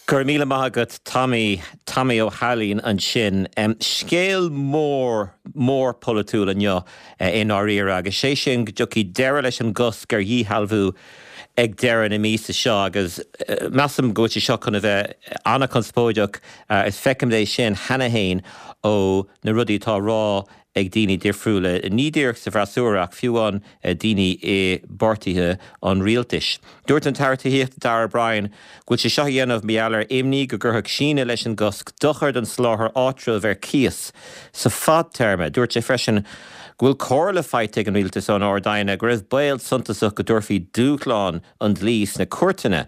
Go raibh míle maith agat Tommy, Tommy Ó hAilín ansin. Scéal mór, mór polaitiúil inniu i ndáiríre agus sé sin go dtiocfaidh deireadh leis an gcosc ar dhíshealbhú ag deireadh na míosa seo agus measaim go bhfuil sé seo chun a bheith an-chonspóideach is feicim é sin cheana féin ó na rudaí atá á rá ag daoine difriúla, ní díreach sa bhfreasúra ach fiú amháin daoine i bpáirtithe an rialtais. Dúirt an tAire Tithíochta Darragh O'Brien go bhfuil sé seo á dhéanamh mar gheall ar imní go gcuirfeadh síneadh leis an gcosc dochar don soláthar áitreabh ar cíos sa fadtéarma. Dúirt sé freisin go bhfuil comhairle faighte ag an rialtas ón Ard-Aighne go raibh baol suntasach go dtabharfaí dúshlán an dlí sna cúirteanna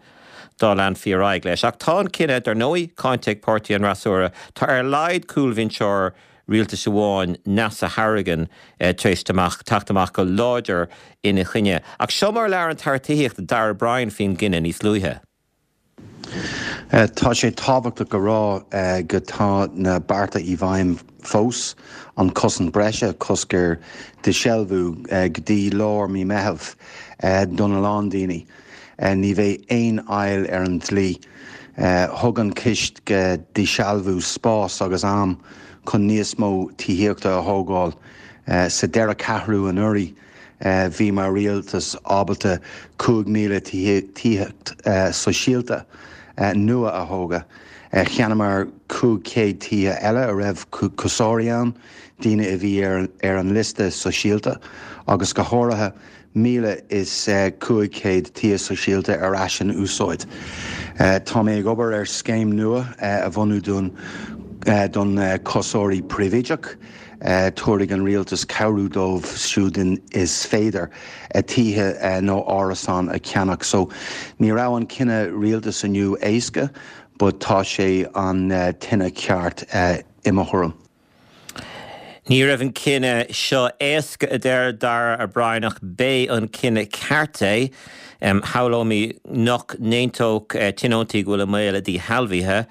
dá leanfaí ar aghaidh leis. Ach tá an cinneadh, dar ndóigh, cáinte ag páirtí an fhreasúra. Tá ar a laghad cúlbhinseoir rialtais amháin, Neasa Hourigan, tar éis teacht amach go láidir ina choinne. Ach seo mar a labhair an tAire Tithíochta, Darragh O'Brien faoin gcinneadh níos luaithe. Tá sé tábhachtach a rá go tá na bearta i bhfeidhm fós, an cosaint breise, cosc ar díshealbhú go dtí lár mí Meitheamh don a lán daoine. Ní bheidh aon fhoill ar an dlí. Thug an cosc díshealbhú spás agus am chun níos mó tithíochta a thógáil. Sa deireadh ceathrú anuraidh, bhí mar rialtas ábalta 5,000 tithíocht sóisialta nua a thógadh. Cheannaíomar 500 tithe eile a raibh cúsóirí ann, daoine a bhí ar an liosta sóisialta, agus go háirithe 1,500 tithe sóisialta ar ais in úsáid. Tá mé ag obair ar scéim nua a bhunú don don cúsóirí príobháideach. Tabharfaidh an rialtas cabhrú dóibh siúd is féidir tithe nó árasán a cheannach. So ní raibh an cinneadh rialtas inniu éasca but tá sé an cinneadh ceart i mo thuairim. Ní raibh an cinneadh seo éasca, a deir Darragh O'Brien, ach b'é an cinneadh ceart é. Shamhlóinn nach n-aontódh tionóntaí go bhfuil i mbaol a ndíshealbhaithe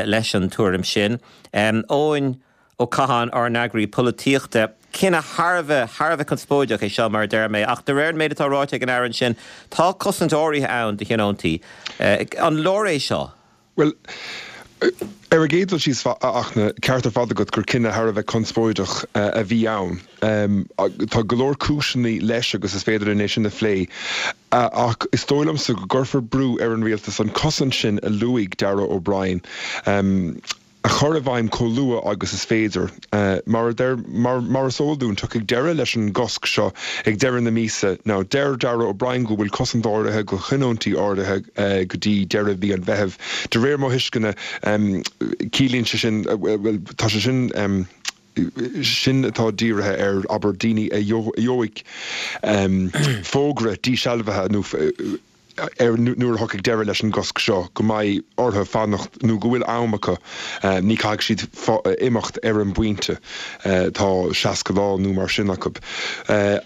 leis an tuairim sin. Eoin Ó Catháin, ár n-eagraí polaitíochta. Cinneadh thar a bheith, thar a bheith conspóideach é seo, mar a deir mé, ach de réir an méid atá ráite ag an Aire ansin, tá cosaint áirithe ann do thionóntaí. An leor é seo? Bhuel, ar an gcéad dul síos, a Fhachtna, ceart ar fad agat gur cinneadh thar a bheith conspóideach a bhí ann. Tá go leor cúiseanna leis agus is féidir linn é sin a phlé, ach is dóigh liomsa go gcuirfear brú ar an rialtas an cosaint sin a luaigh Darragh O'Brien a chur i bhfeidhm chomh luath agus is féidir. Mar a deir, mar is eol dúinn, tiocfaidh deireadh leis an gcosc seo ag deireadh na míosa. Now, deir Darragh O'Brien go bhfuil cosaint áirithe do thionóntaí áirithe go dtí deireadh mhí an Mheithimh. De réir mo thuisceana, ciallaíonn sé sin, bhuel, tá sé sin, sin atá dírithe ar, abair, daoine a gheobhaidh fógra dísealbhaithe nó ar nuair a thiocfaidh deireadh leis an gcosc seo, go mbeidh orthu fanacht nó go bhfuil am acu, ní caithfidh siad imeacht ar an bpointe, tá 60 lá nó mar sin acu.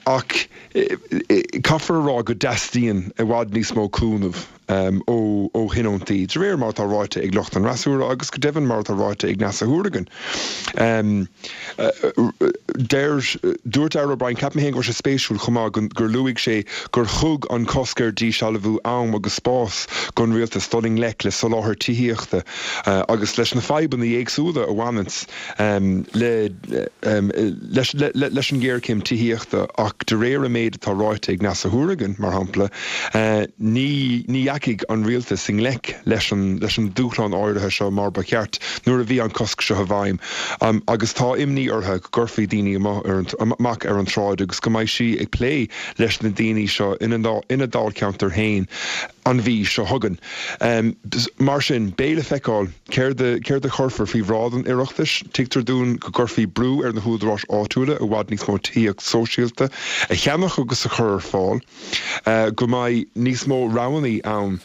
Ach caithfear a rá go dteastaíonn i bhfad níos mó cúnamh ó thionóntaí, de réir mar atá ráite ag lucht an fhreasúra agus go deimhin mar atá ráite ag Neasa Hourigan. Deir, dúirt Darragh O'Brien, ceapaim féin go raibh sé spéisiúil chomh maith gur luaigh sé gur thug an cosc ar dísealbhú am agus spás don rialtas dul i ngleic le soláthar tithíochta agus leis na fadhbanna éagsúla a bhaineanns le leis an ghéarchéim tithíochta ach de réir an méid atá ráite ag Neasa Hourigan, mar shampla, ní ní dheachaigh an rialtas i ngleic leis an leis an dúshlán áirithe seo mar ba cheart nuair a bhí an cosc seo i bhfeidhm agus tá imní uirthi go gcuirfí daoine amach ar an tsráid agus go mbeidh sí ag plé leis na daoine seo ina ina dáilcheantar féin an mhí seo chugainn. Mar sin, beidh le feiceáil céard a céard a chuirfear faoi bhráid an Oireachtais. Tuigtear dúinn go gcuirfí brú ar na húdaráis áitiúla i bhfad níos mó tithíocht sóisialta a cheannach agus a chur ar fáil. go mbeidh níos mó roghanna ann,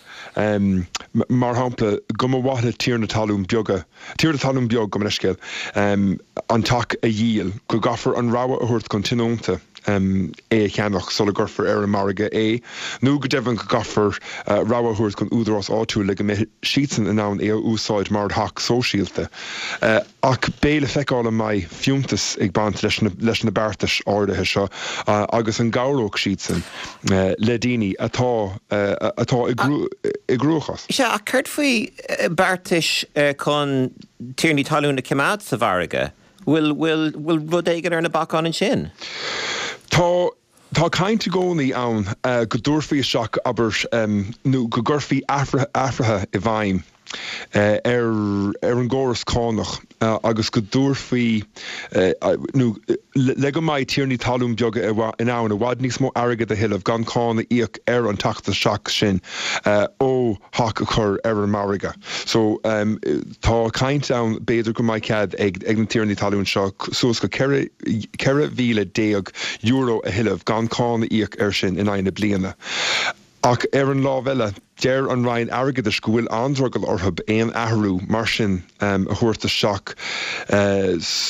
mar shampla, go mba mhaith le tiarna talún beaga, tiarna talún beag, gabh mo leithscéal, an teach a dhíol, go gcaithfear an rogha a thabhairt don tionónta. é a cheannach sula gcuirfear ar an margadh é, nó go deimhin go gcaithfear rogha a thabhairt don údarás áitiúil le go mbeidh siadsan in ann é a úsáid mar theach sóisialta. Ach beidh le feiceáil an mbeidh fiúntas ag baint leis leis na beartais áirithe seo agus an gcabhróidh siadsan le daoine atá atá i gcruachás. Sea, ach céard faoi beartais chun tiarnaí talún a choimeád sa mhargadh? Bhfuil, bhfuil, bhfuil rud éigin ar na bacáin ansin? Tá, tá caint i gcónaí ann go dtabharfaí isteach, abair, nó go gcuirfí athruithe i bhfeidhm ar, ar an gcóras cánach agus go dtabharfaí, nó le go mbeidh tiarnaí talún beaga in ann i bhfad níos mó airgid a thuilleamh gan cáin a íoc ar an teacht isteach sin ó theach a chur ar an margadh. So, tá caint ann b'fhéidir go mbeidh cead ag na tiarnaí talún seo suas go €14,000 a thuilleamh gan cáin a íoc air sin in aghaidh na bliana. Ach ar an lámh eile, deir an Roinn Airgeadais go bhfuil an-drogall orthu aon athrú mar sin a thabhairt isteach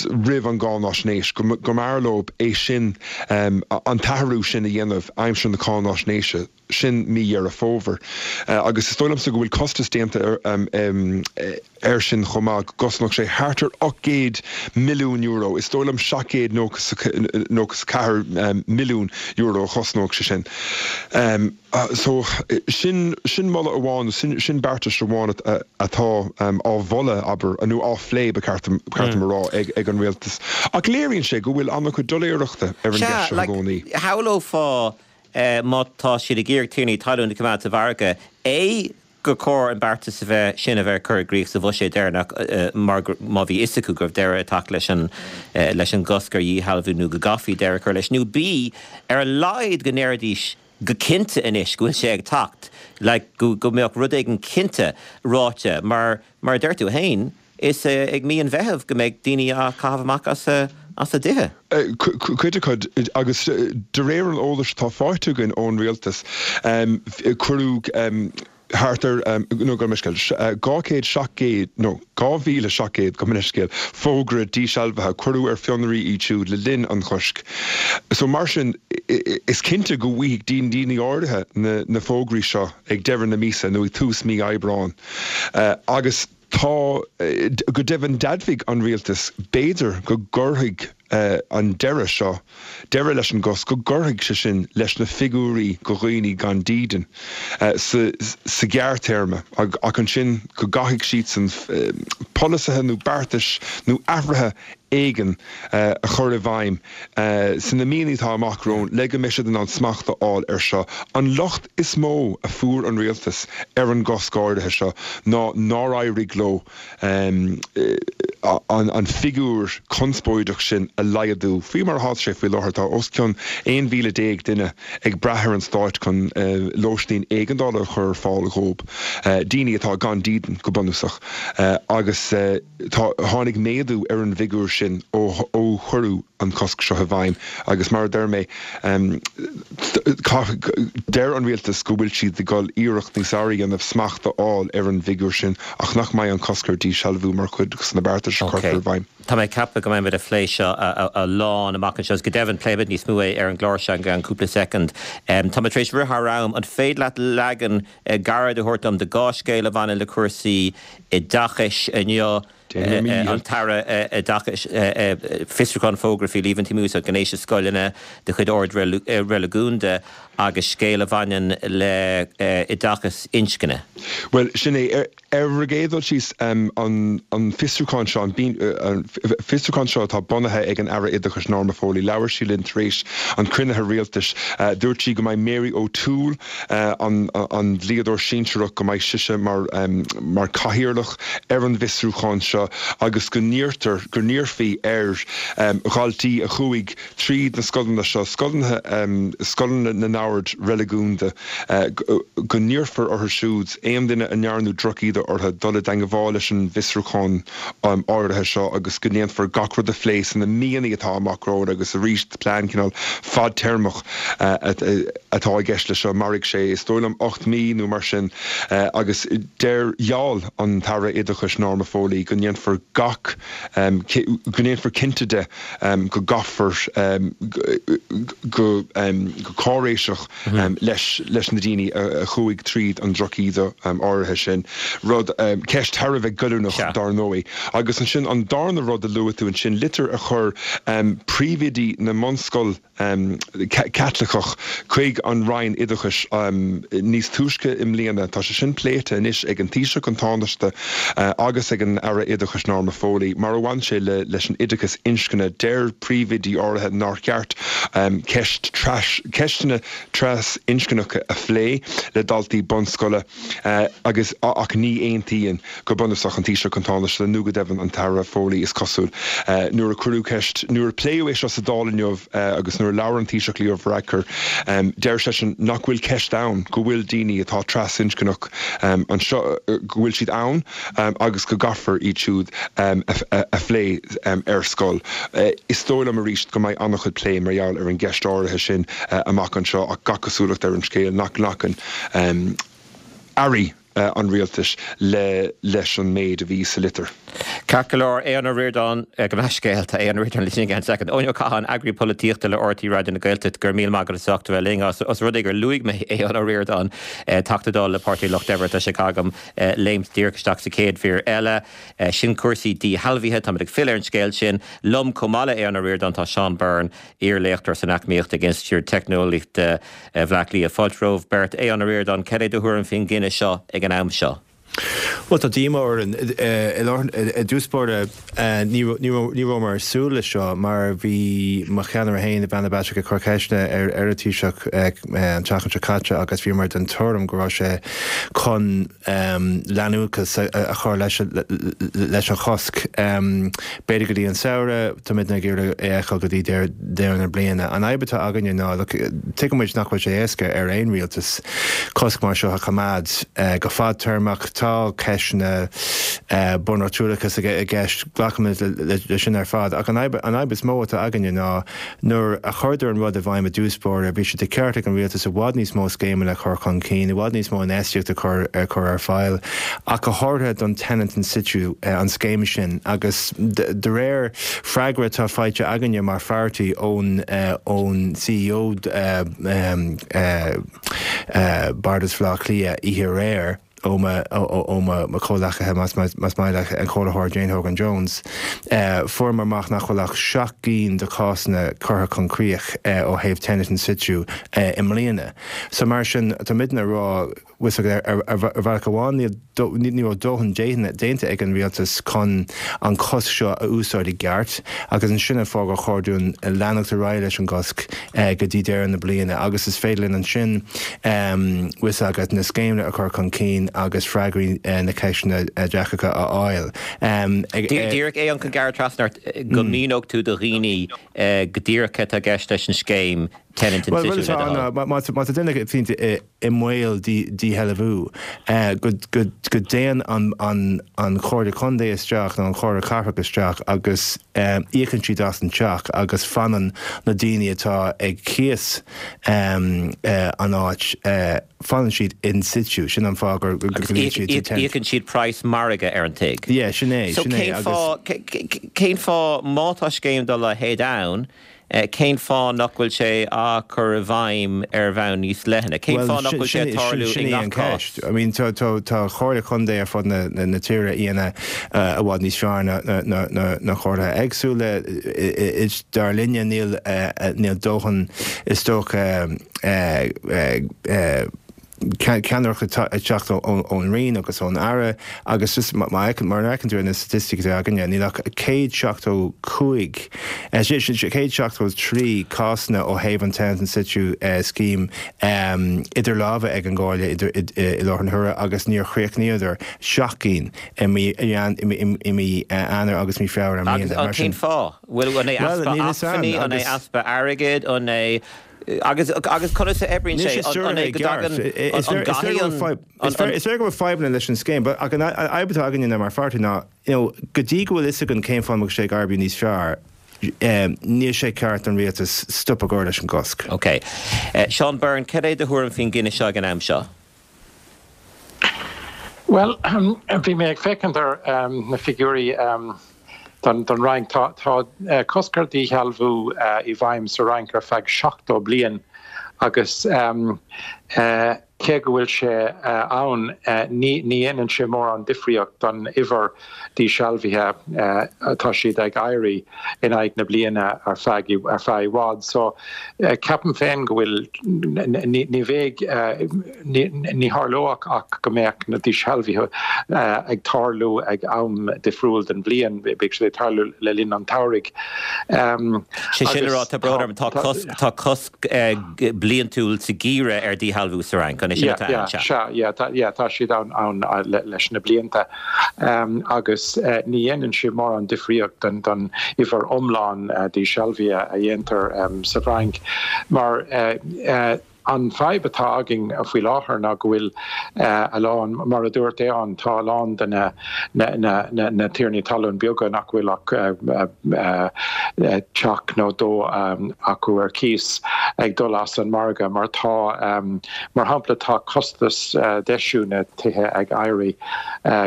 roimh an gcáináisnéis, go mb'fhearr leo é sin, an t-athrú sin a dhéanamh aimsir na cáináisnéise. Sin mí Dheireadh Fómhair. Agus is dóigh liomsa go bhfuil costas déanta air sin chomh maith, go gcosnódh sé thart ar €800 milliún, is dóigh liom €794 milliún a chosnódh sé sin. So, sin, sin moladh amháin, nó sin beartas amháin atá á mholadh, abair, nó á phlé, ba cheart dom a rá, ag an rialtas. Ach léiríonn sé go bhfuil an-chuid doiléireachta ar an gceist seo i gcónaí. Sea, like, shamhlófá má tá siad ag iarraidh tiarnaí talún a choimeád sa mhargadh, A, gur chóir an beartas a bheith sin a bheith curtha i gcrích sa bhuiséad deireanach mar gur, má bhí fhios acu go raibh deireadh ag teacht leis an leis an gcosc ar dhíshealbhú nó go gcaithfí deireadh a chur leis, nó B, ar a laghad go ndéarfaidís go cinnte anois go bhfuil sé ag teacht, like go go mbeadh rud éigin cinnte ráite mar, mar a deir tú féin, Is ag mí an Mheithimh go mbeidh daoine á caitheamh amach as a dtithe. Cuid acu, agus de réir an eolais atá faighte againn ón rialtas, cuireadh thart ar, nó gabh mo leithscéal, 200, 700, nó 2,700, gabh mo leithscéal, fógra dísealbhaithe, cuireadh ar fionraí iad siúd le linn an choisc. So mar sin, is cinnte go bhfaighidh daoine áirithe na fógraí seo ag deireadh na míosa nó ag tús mí Aibreáin. Agus. Tá, go deimhin d'admhaigh an rialtas, b'fhéidir go gcuirfidh an deireadh seo, deireadh leis an gcosc, go gcuirfidh sé sin leis na figiúirí go dhaoine gan dídean sa ghearrthéarma ach ansin go gcaithfidh siadsan polasaithe nó beartais nó athruithe éigin a chur i bhfeidhm sna míonna atá amach romhainn le go mbeidh siad in ann smacht a fháil air seo. An locht is mó a fuair an rialtas ar an gcosc áirithe seo ná nár éirigh leo an figiúr conspóideach sin a laghdú. Faoi mar atá sé faoi láthair, tá os cionn 11,000 duine ag brath ar an stáit chun lóistín éigeandála a chur ar fáil dhóibh, daoine atá gan dídean go bunúsach, agus. Tá, tháinig méadú ar an bhfigiúr sin ó ó cuireadh an cosc seo i bhfeidhm agus mar a deir mé, deir an rialtas go bhfuil siad ag dul iarracht níos fearr a dhéanamh smacht a fháil ar an bhfigiúr sin ach nach mbeidh an cosc ar dhíshealbhú mar chuid de na beartais a chuirfear i bhfeidhm. Tá mé ag ceapadh go mbeimid ag plé seo a lán amach anseo agus go deimhin pléifimid níos mó é ar an gclár seo i gceann cúpla soicind. Tá mé tar éis rith thar am, an féidir leat leagan gairid a thabhairt dom de dhá scéal a bhaineann le cúrsaí oideachais inniu, an tAire Oideachais, fiosrúchán fógartha faoi líomhaintí mí-úsáid gnéis i scoileanna de chuid ord reiligiúnda agus scéal a bhaineann le oideachas inscne. Bhuel, sin é. Ar an gcéad dul síos, an fiosrúchán seo, an fiosrúchán seo atá bunaithe ag an Aire Oideachais Norma Foley, labhair sí linn tar éis an chruinnithe rialtais. Dúirt sí go mbeidh Mary O'Toole, an dlíodóir sinsearach, go mbeidh sise mar mar cathaoirleach ar an bhfiosrúchán seo agus go n-iarrtar, go n-iarrfaí ar dhaltaí a chuaigh tríd na scoileanna seo, scoileanna, scoileanna na n-ord reiligiúnda, go n-iarrfar orthu siúd, aon duine a ndearnadh drochíde orthu, dul i dteangmháil leis an bhfiosrúchán áirithe seo agus go ndéanfar gach rud a phlé sna míonna atá amach romhainn agus arís plean cineál fadtéarmach atá i gceist leis seo. Mairfidh sé, is dóigh liom, 8 mí nó mar sin agus deir, gheall an tAire Oideachais Norma Foley go ndéanfar. ndéanfar gach, go ndéanfar cinnte de go gcaithfear go cáiréiseach leis leis na daoine a chuaigh tríd an drochíde áirithe sin. Rud, ceist thar a bheith goilliúnach dar ndóigh. Agus ansin an darna rud a luaigh tú ansin, litir a chuir príomhoidí na mbunscol, Caitliceach chuig an Roinn Oideachais níos túisce i mbliana. Tá sé sin pléite anois ag an Taoiseach, an Tánaiste agus ag an Aire Oideachais Norma Foley. Mar a bhain sé leis an oideachas inscne, deir príomhoidí áirithe nár cheart ceist ceisteanna tras-inscneacha a phlé le daltaí bunscoile agus ach ní aontaíonn Go bunúsach, an Taoiseach, an Tánaiste nó go deimhin an tAire Foley, is cosúil. Nuair a cuireadh ceist, nuair a pléadh é seo sa Dáil inniu agus nuair a labhair an Taoiseach Leo Varadkar, deir seisean nach bhfuil ceist ann go bhfuil daoine atá trasinscneach anseo, go bhfuil siad ann agus go gcaithfear iad siúd a phlé ar scoil. Is dóigh liom arís go mbeidh an-chuid plé mar gheall ar an gceist áirithe sin amach anseo ach gach cosúlacht ar an scéal nach nglacann airí an rialtais le leis an méid a bhí sa litir. Ceart go leor, Aodhán Ó Ríordáin, gabh mo leithscéal, tá Aodhán Ó Ríordáin linn again second. Eoin Ó Catháin, eagraí polaitíochta le RTÉ Raidió na Gaeltachta, go raibh míle maith agat as ucht a bheith linn. Os rud é gur luaigh mé Aodhán Ó Ríordáin, Teachta Dála le Páirtí an Lucht Oibre, tá sé agam léimt díreach isteach sa chéad mhír eile. Sin cúrsaí díshealbhaithe, táimid ag filleadh ar an scéal sin. Liom chomh maith le Aodhán Ó Ríordáin tá Seán Byrne, iar-léachtóir san Eacnamaíocht ag Institiúid Teicneolaíochta Bhaile Átha Cliath. Fáilte romhaibh beirt. Aodhán Ó Ríordáin, cad é do thuairim faoin gcinneadh seo ag an am seo? Bhuel, tá díomá orainn. I dtús báire, ní rabhamar ag súil leis seo mar bhí mo cheannaire féin, Ivana Bacik, ag cur ceisteanna ar an Taoiseach an tseachtain seo caite agus bhíomar den tuairim go raibh sé chun leanúnachas a chur leis an chosc. B'fhéidir go dtí an samhradh, táimidne ag iarraidh é a fheiceáil go dtí deireadh na bliana. An fhadhb atá againne ná, look, tuigeann muid nach bhfuil sé éasca ar aon rialtas cosc mar seo a choimeád go fadtéarmach. Tá ceisteanna bunreachtúlachas i gceist, glacaimid leis sin ar fad. Ach an fhadhb is mó atá againne ná Nuair a chuireadar an rud i bhfeidhm i dtús báire, bhí sé de cheart ag an rialtas i bhfad níos mó scéimeanna a chur chun cinn, i bhfad níos mó infheistíocht a chur a chur ar fáil, ach go háirithe don tenant in situ, an scéim sin. Agus de réir freagra atá faighte againne mar pháirtí ón ón CEO Bhardas Bhaile Átha Cliath oíche aréir, ó mo chomhghleacaithe, más maith leat, an Comhairleoir Jane Hogan Jones, fuaireamar amach nach bhfuil ach 7 gcinn de chásanna curtha chun críoch ó thaobh tenant in situ i mbliana. So mar sin, tá muidne ag rá, bhfuil fhios agat, ar bhealach amháin ní raibh dóthain déanta ag an rialtas chun an cosc seo a úsáid i gceart agus ansin an fáth gur chóir dúinn leanacht ar aghaidh leis an gcosc go dtí deireadh na bliana agus is féidir linn ansin bhfuil fhios agat, na scéimeanna a chur chun cinn agus freagraí na ceisteanna deacracha a fháil. Díreach é an gearradh trasna ort go míneodh tú do dhaoine go díreach cad tá i gceist leis an scéim Tenant in Situ le do thoil. Má tá duine i mbaol díshealbhú, go dtéann an Chomhairle Contae isteach nó an Chomhairle Cathrach isteach agus íocann siad as an teach agus fanann na daoine atá ag cíos an áit, fanann siad in situ. Sin an fáth gur glaonn siad to tenant. Íocann siad praghas margaidh ar an tigh. Yeah, sin é, sin é. So cén fáth, má tá scéim dá leithéid ann, cén fáth nach bhfuil sé á chur i bhfeidhm ar bhonn níos leithne? Cén fáth nach bhfuil sé ag tarlú i ngach cás? I mean, tá comhairle contae ar fud na tíre a dhéanamh i bhfad níos fearr ná na comhairlithe éagsúla. Dar linne, níl dóthain, is dócha, ceannaireacht ag teacht ón Roinn agus ón Aire agus just mar a fheiceann tú ar na staitisticí atá againne, níl ach 175, 173 cásanna ó thaobh an Tenant in Situ scheme idir lámha ag an gComhairle i láthair na huaire agus níor chríochnaíodar 7 gcinn i mí Eanáir agus mí Feabhra i mbliana. Agus cén fáth? Bhfuil, an é easpa acmhainní, an é easpa airgid, an é Agus agus conas a oibríonn sé? An é go dtagann an gcaithfidh an Is léir go bhfuil fadhbanna leis an scéim, but ach an fhadhb atá againne mar pháirtí ná, you know, go dtí go bhfuil fhios againn cén fáth a mbeadh sé ag oibriú níos fearr, níl sé ceart don rialtas stop a chur leis an gcosc. Ok. Seán Byrne, cad é do thuairim faoin gcinneadh seo ag an am seo? Bhuel, bhí mé ag féachaint ar na figiúirí don Fhrainc. Tá cosc ar dhíshealbhú i bhfeidhm sa Fhrainc ar feadh 70 bliain agus cé go bhfuil sé ann, ní dhéanann sé mórán difríocht don uimhir díshealbhaithe. Tá siad ag éirí in aghaidh na bliana ar feadh ar feadh i bhfad. So, ceapaim féin go bhfuil, ní bheidh, Ní tharlódh ach go mbeadh na díshealbhuithe ag tarlú ag am difriúil den bhliain, beidh siad ag tarlú le linn an tsamhraidh. Sé sin le rá, tá brón orm, tá cosc, tá cosc bliantúil sa gheimhreadh ar dhíshealbhú sa Fhrainc, an é sin atá ann? Sea, yeah, yeah, tá siad ann leis na blianta agus ní dhéanann sé mórán difríocht don uimhir iomlán díshealbhuithe a dhéantar sa bhFrainc mar An fadhb atá againn faoi láthair ná go bhfuil a lán, mar a dúirt Aodhán, tá a lán de na na tiarnaí talún beaga nach bhfuil ach teach nó dó acu ar cíos ag dul as an margadh mar tá, mar shampla, tá costas deisiú na tithe ag éirí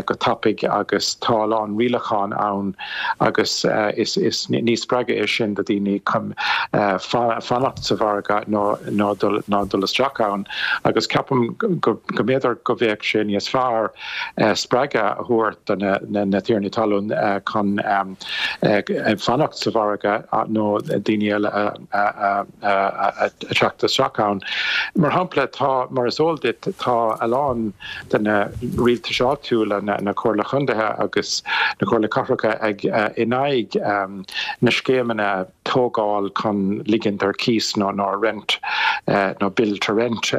go tapaidh agus tá a lán rialachán ann agus is ní spreagadh é sin do dhaoine chun fanacht sa mhargadh ná dul isteach ann agus ceapaim go mb'fhéidir go bheadh sé níos fearr spreagadh a thabhairt do na tiarnaí talún chun fanacht sa mhargadh nó daoine eile a theacht isteach ann. Mar shampla, tá, mar is eol duit, tá a lán de na rialtais áitiúla, na Comhairle Chontaetha agus na Comhairle Cathracha ag in aghaidh na scéimeanna tógáil chun ligint ar cíos nó nó rent nó build to rent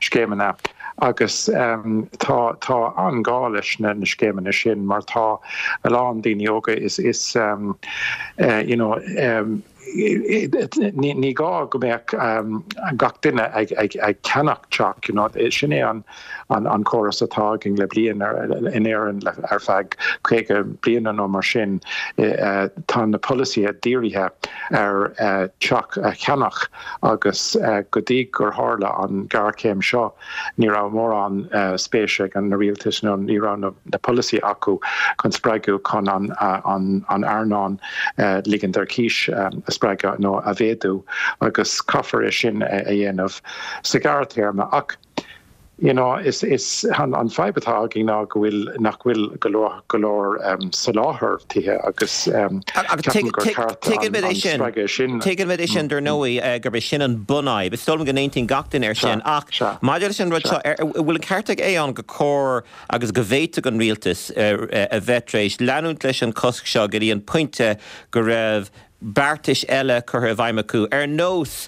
scéimeanna agus tá tá an-ghá leis na scéimeanna sin mar tá a lán daoine óga is is you know Ní gá go mbeadh gach duine ag ceannach teach, you know. Sin é an córas atá againn le bliain in Éirinn ar feadh 50 bliana nó mar sin. Tá na polasaithe dírithe ar teach a cheannach agus go dtí gur tharla an ghéarchéim seo, Ní raibh mórán spéise ag na rialtais nó ní raibh na polasaithe acu chun spreagadh chun an earnáil ligint ar cíos a spreagadh nó a mhéadú agus caithfear é sin a dhéanamh sa ghearrthéarma. Ach you know is is an fadhb atá againn ná go bhfuil nach bhfuil go leor go leor soláthar tithe agus ceapaim gur ceart an spreagadh sin. Tuigimid é sin, dar ndóigh, gurb é sin an bunfhadhb. Is dóigh liom go n-aontaíonn gach duine air sin. Ach maidir leis an rud seo, an bhfuil an ceart ag Aodhán gur chóir agus go bhféadfadh an rialtas a bheith tar éis leanúint leis an chosc seo go dtí an pointe go raibh beartais eile curtha i bhfeidhm acu, ar nós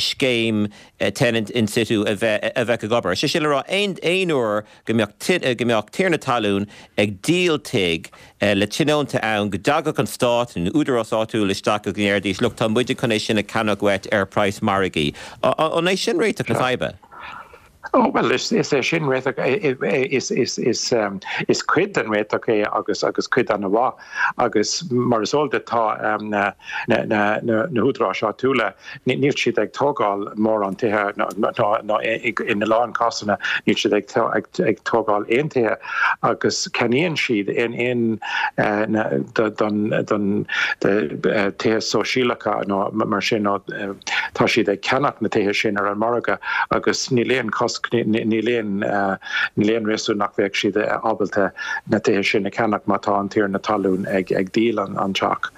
scéim tenant in situ a bheith a bheith ag obair. Sé sin le rá, aon aon uair go mbeadh go mbeadh tiarna talún ag díol tigh le tionónta ann, go dtagadh an stát nó údarás áitiúil isteach agus go ndéarfaidís, look, tá muide chun é sin a cheannach uait ar praghas margaidh. An é sin réiteach na faidhbe? Ó, bhuel, is é sin réiteach, is cuid den réiteach é agus agus cuid an-mhaith agus mar is eol duit tá na na húdaráis áitiúla, níl siad ag tógáil mórán tithe ná ina lán cásanna níl siad ag tógáil aon tithe agus ceannaíonn siad aon don tithe sóisialacha nó mar sin nó tá siad ag ceannach na tithe sin ar an margadh agus níl aon chosc, níl aon, níl aon réasún nach mbeadh siad ábalta na tithe sin a cheannach má tá an tiarna talún ag díol an teach.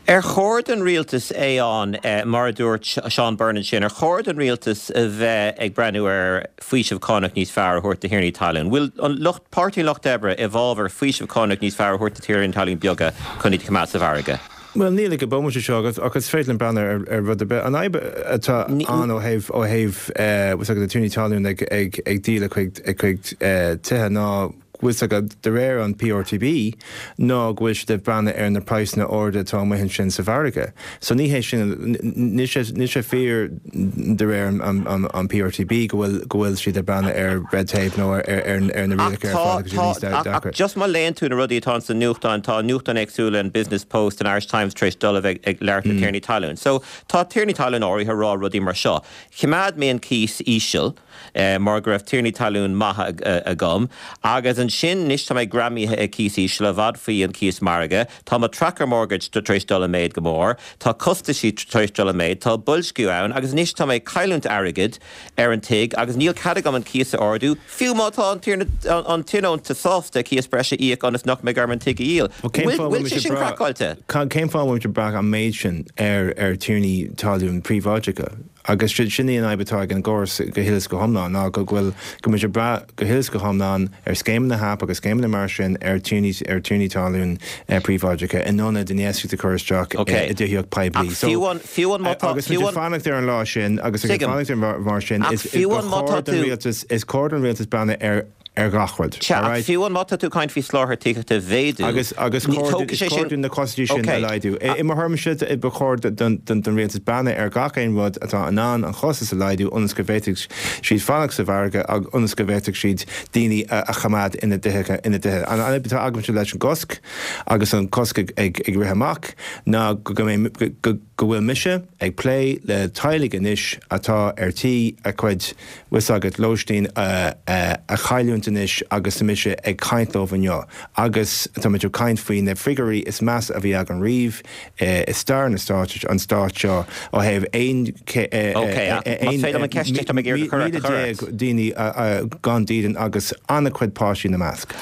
Ar chóir don rialtas, Aodhán, mar a dúirt Seán Byrne ansin, ar chóir don rialtas a bheith ag breathnú ar faoiseamh cánach níos fearr a thabhairt do thiarnaí talún? Bhfuil an lucht, Páirtí an Lucht Oibre i bhfabhar faoiseamh cánach níos fearr a thabhairt do thiarnaí talún beaga chun iad a choimeád sa mhargadh? Bhuel, níl ag an bomaite seo ach is féidir linn breathnú ar rud ar bith. An fhadhb atá ann ó thaobh ó thaobh na tiarnaí talún ag díol a gcuid tithe ná. bhfuil 's agat, de réir an PRTB, ná go bhfuil siad ag breathnú ar na praghsanna arda atá amuigh ansin sa mhargadh. So ní hé sin, níl sé, níl sé fíor de réir an PRTB go bhfuil, go bhfuil siad ag breathnú ar red tape nó ar, ar, ar na Ach rialacha ar tá, fad agus tá, níos ach, ach deacra. just má léann tú na rudaí atá ins na nuachtáin, tá nuachtáin éagsúla, an Business Post, an Irish Times tar éis dul a bheith ag labhairt le tiarnaí talún. So tá tiarnaí talún áirithe ag rá rudaí mar seo, Choimeád mé an cíos íseal, mar go raibh tiarnaí talún maithe agam, agus ansin anois tá mé greamaithe ag cíos íseal, i bhfad faoi an cíos margaidh, tá mo tracker mortgage tar éis dul i méid go mór, tá costaisí tar éis dul i méid, tá boilsciú ann, agus anois tá mé ag cailliúint airgid ar an tigh agus níl cead agam an cíos a ardú, fiú má tá an tionónta sásta cíos breise a íoc ionas nach mbeidh orm an tigh a dhíol. Bhfuil sé sin craiceáilte? Cén fáth a bhfuil muid ag brath an méid sin ar tiarnaí talún príobháideacha? Agus sin í an fhadhb atá ag an gcóras go huile is go hiomlán, ná go bhfuil, go bhfuil muid ag brath go huile is go hiomlán ar scéimeanna HAP agus scéimeanna mar sin ar tiarnaí, ar tiarnaí talún príobháideacha in ionad infheistíocht a chur isteach i dtithíocht poiblí. Ach fiú an, fiú an má tá, Agus muid fiú ag an. fanacht ar an lá sin, agus ag Tuigim. fanacht ar mar sin, Ach is, fiú ba an má chóir tá don tú. rialtas, is cóir don rialtas breathnú ar, ar gach rud. Sea, ach Alright? fiú an má tá tú ag caint faoi soláthar tithíochta a mhéadú, Agus, agus ní, cóir, tógfaidh is sé cóir sin, dúinn na costaisí sin a ok, laghdú. I, i mo thuairimse, ba chóir don, don, don rialtas breathnú ar gach aon rud atá in ann an chostas a laghdú ionas go bhféadfaidh siad fanacht sa mhargadh ag, ionas go bhféadfaidh siad daoine a, a choimeád ina dtithe, ina dtithe. An fhadhb atá agamsa leis an gcosc agus an cosc ag, ag, ag rith amach ná go, go mbeidh, go, go, go bhfuil mise ag plé le teaghlaigh anois atá ar tí a cuid, bhfuil 's agat, lóistín a chailliúint anois agus tá mise ag caint leo inniu agus tá muid ag caint faoi na figiúirí is measa a bhí againn riamh i stair na stáit, an stáit seo ó thaobh 11 daoine gan dídean agus an-chuid páistí ina measc.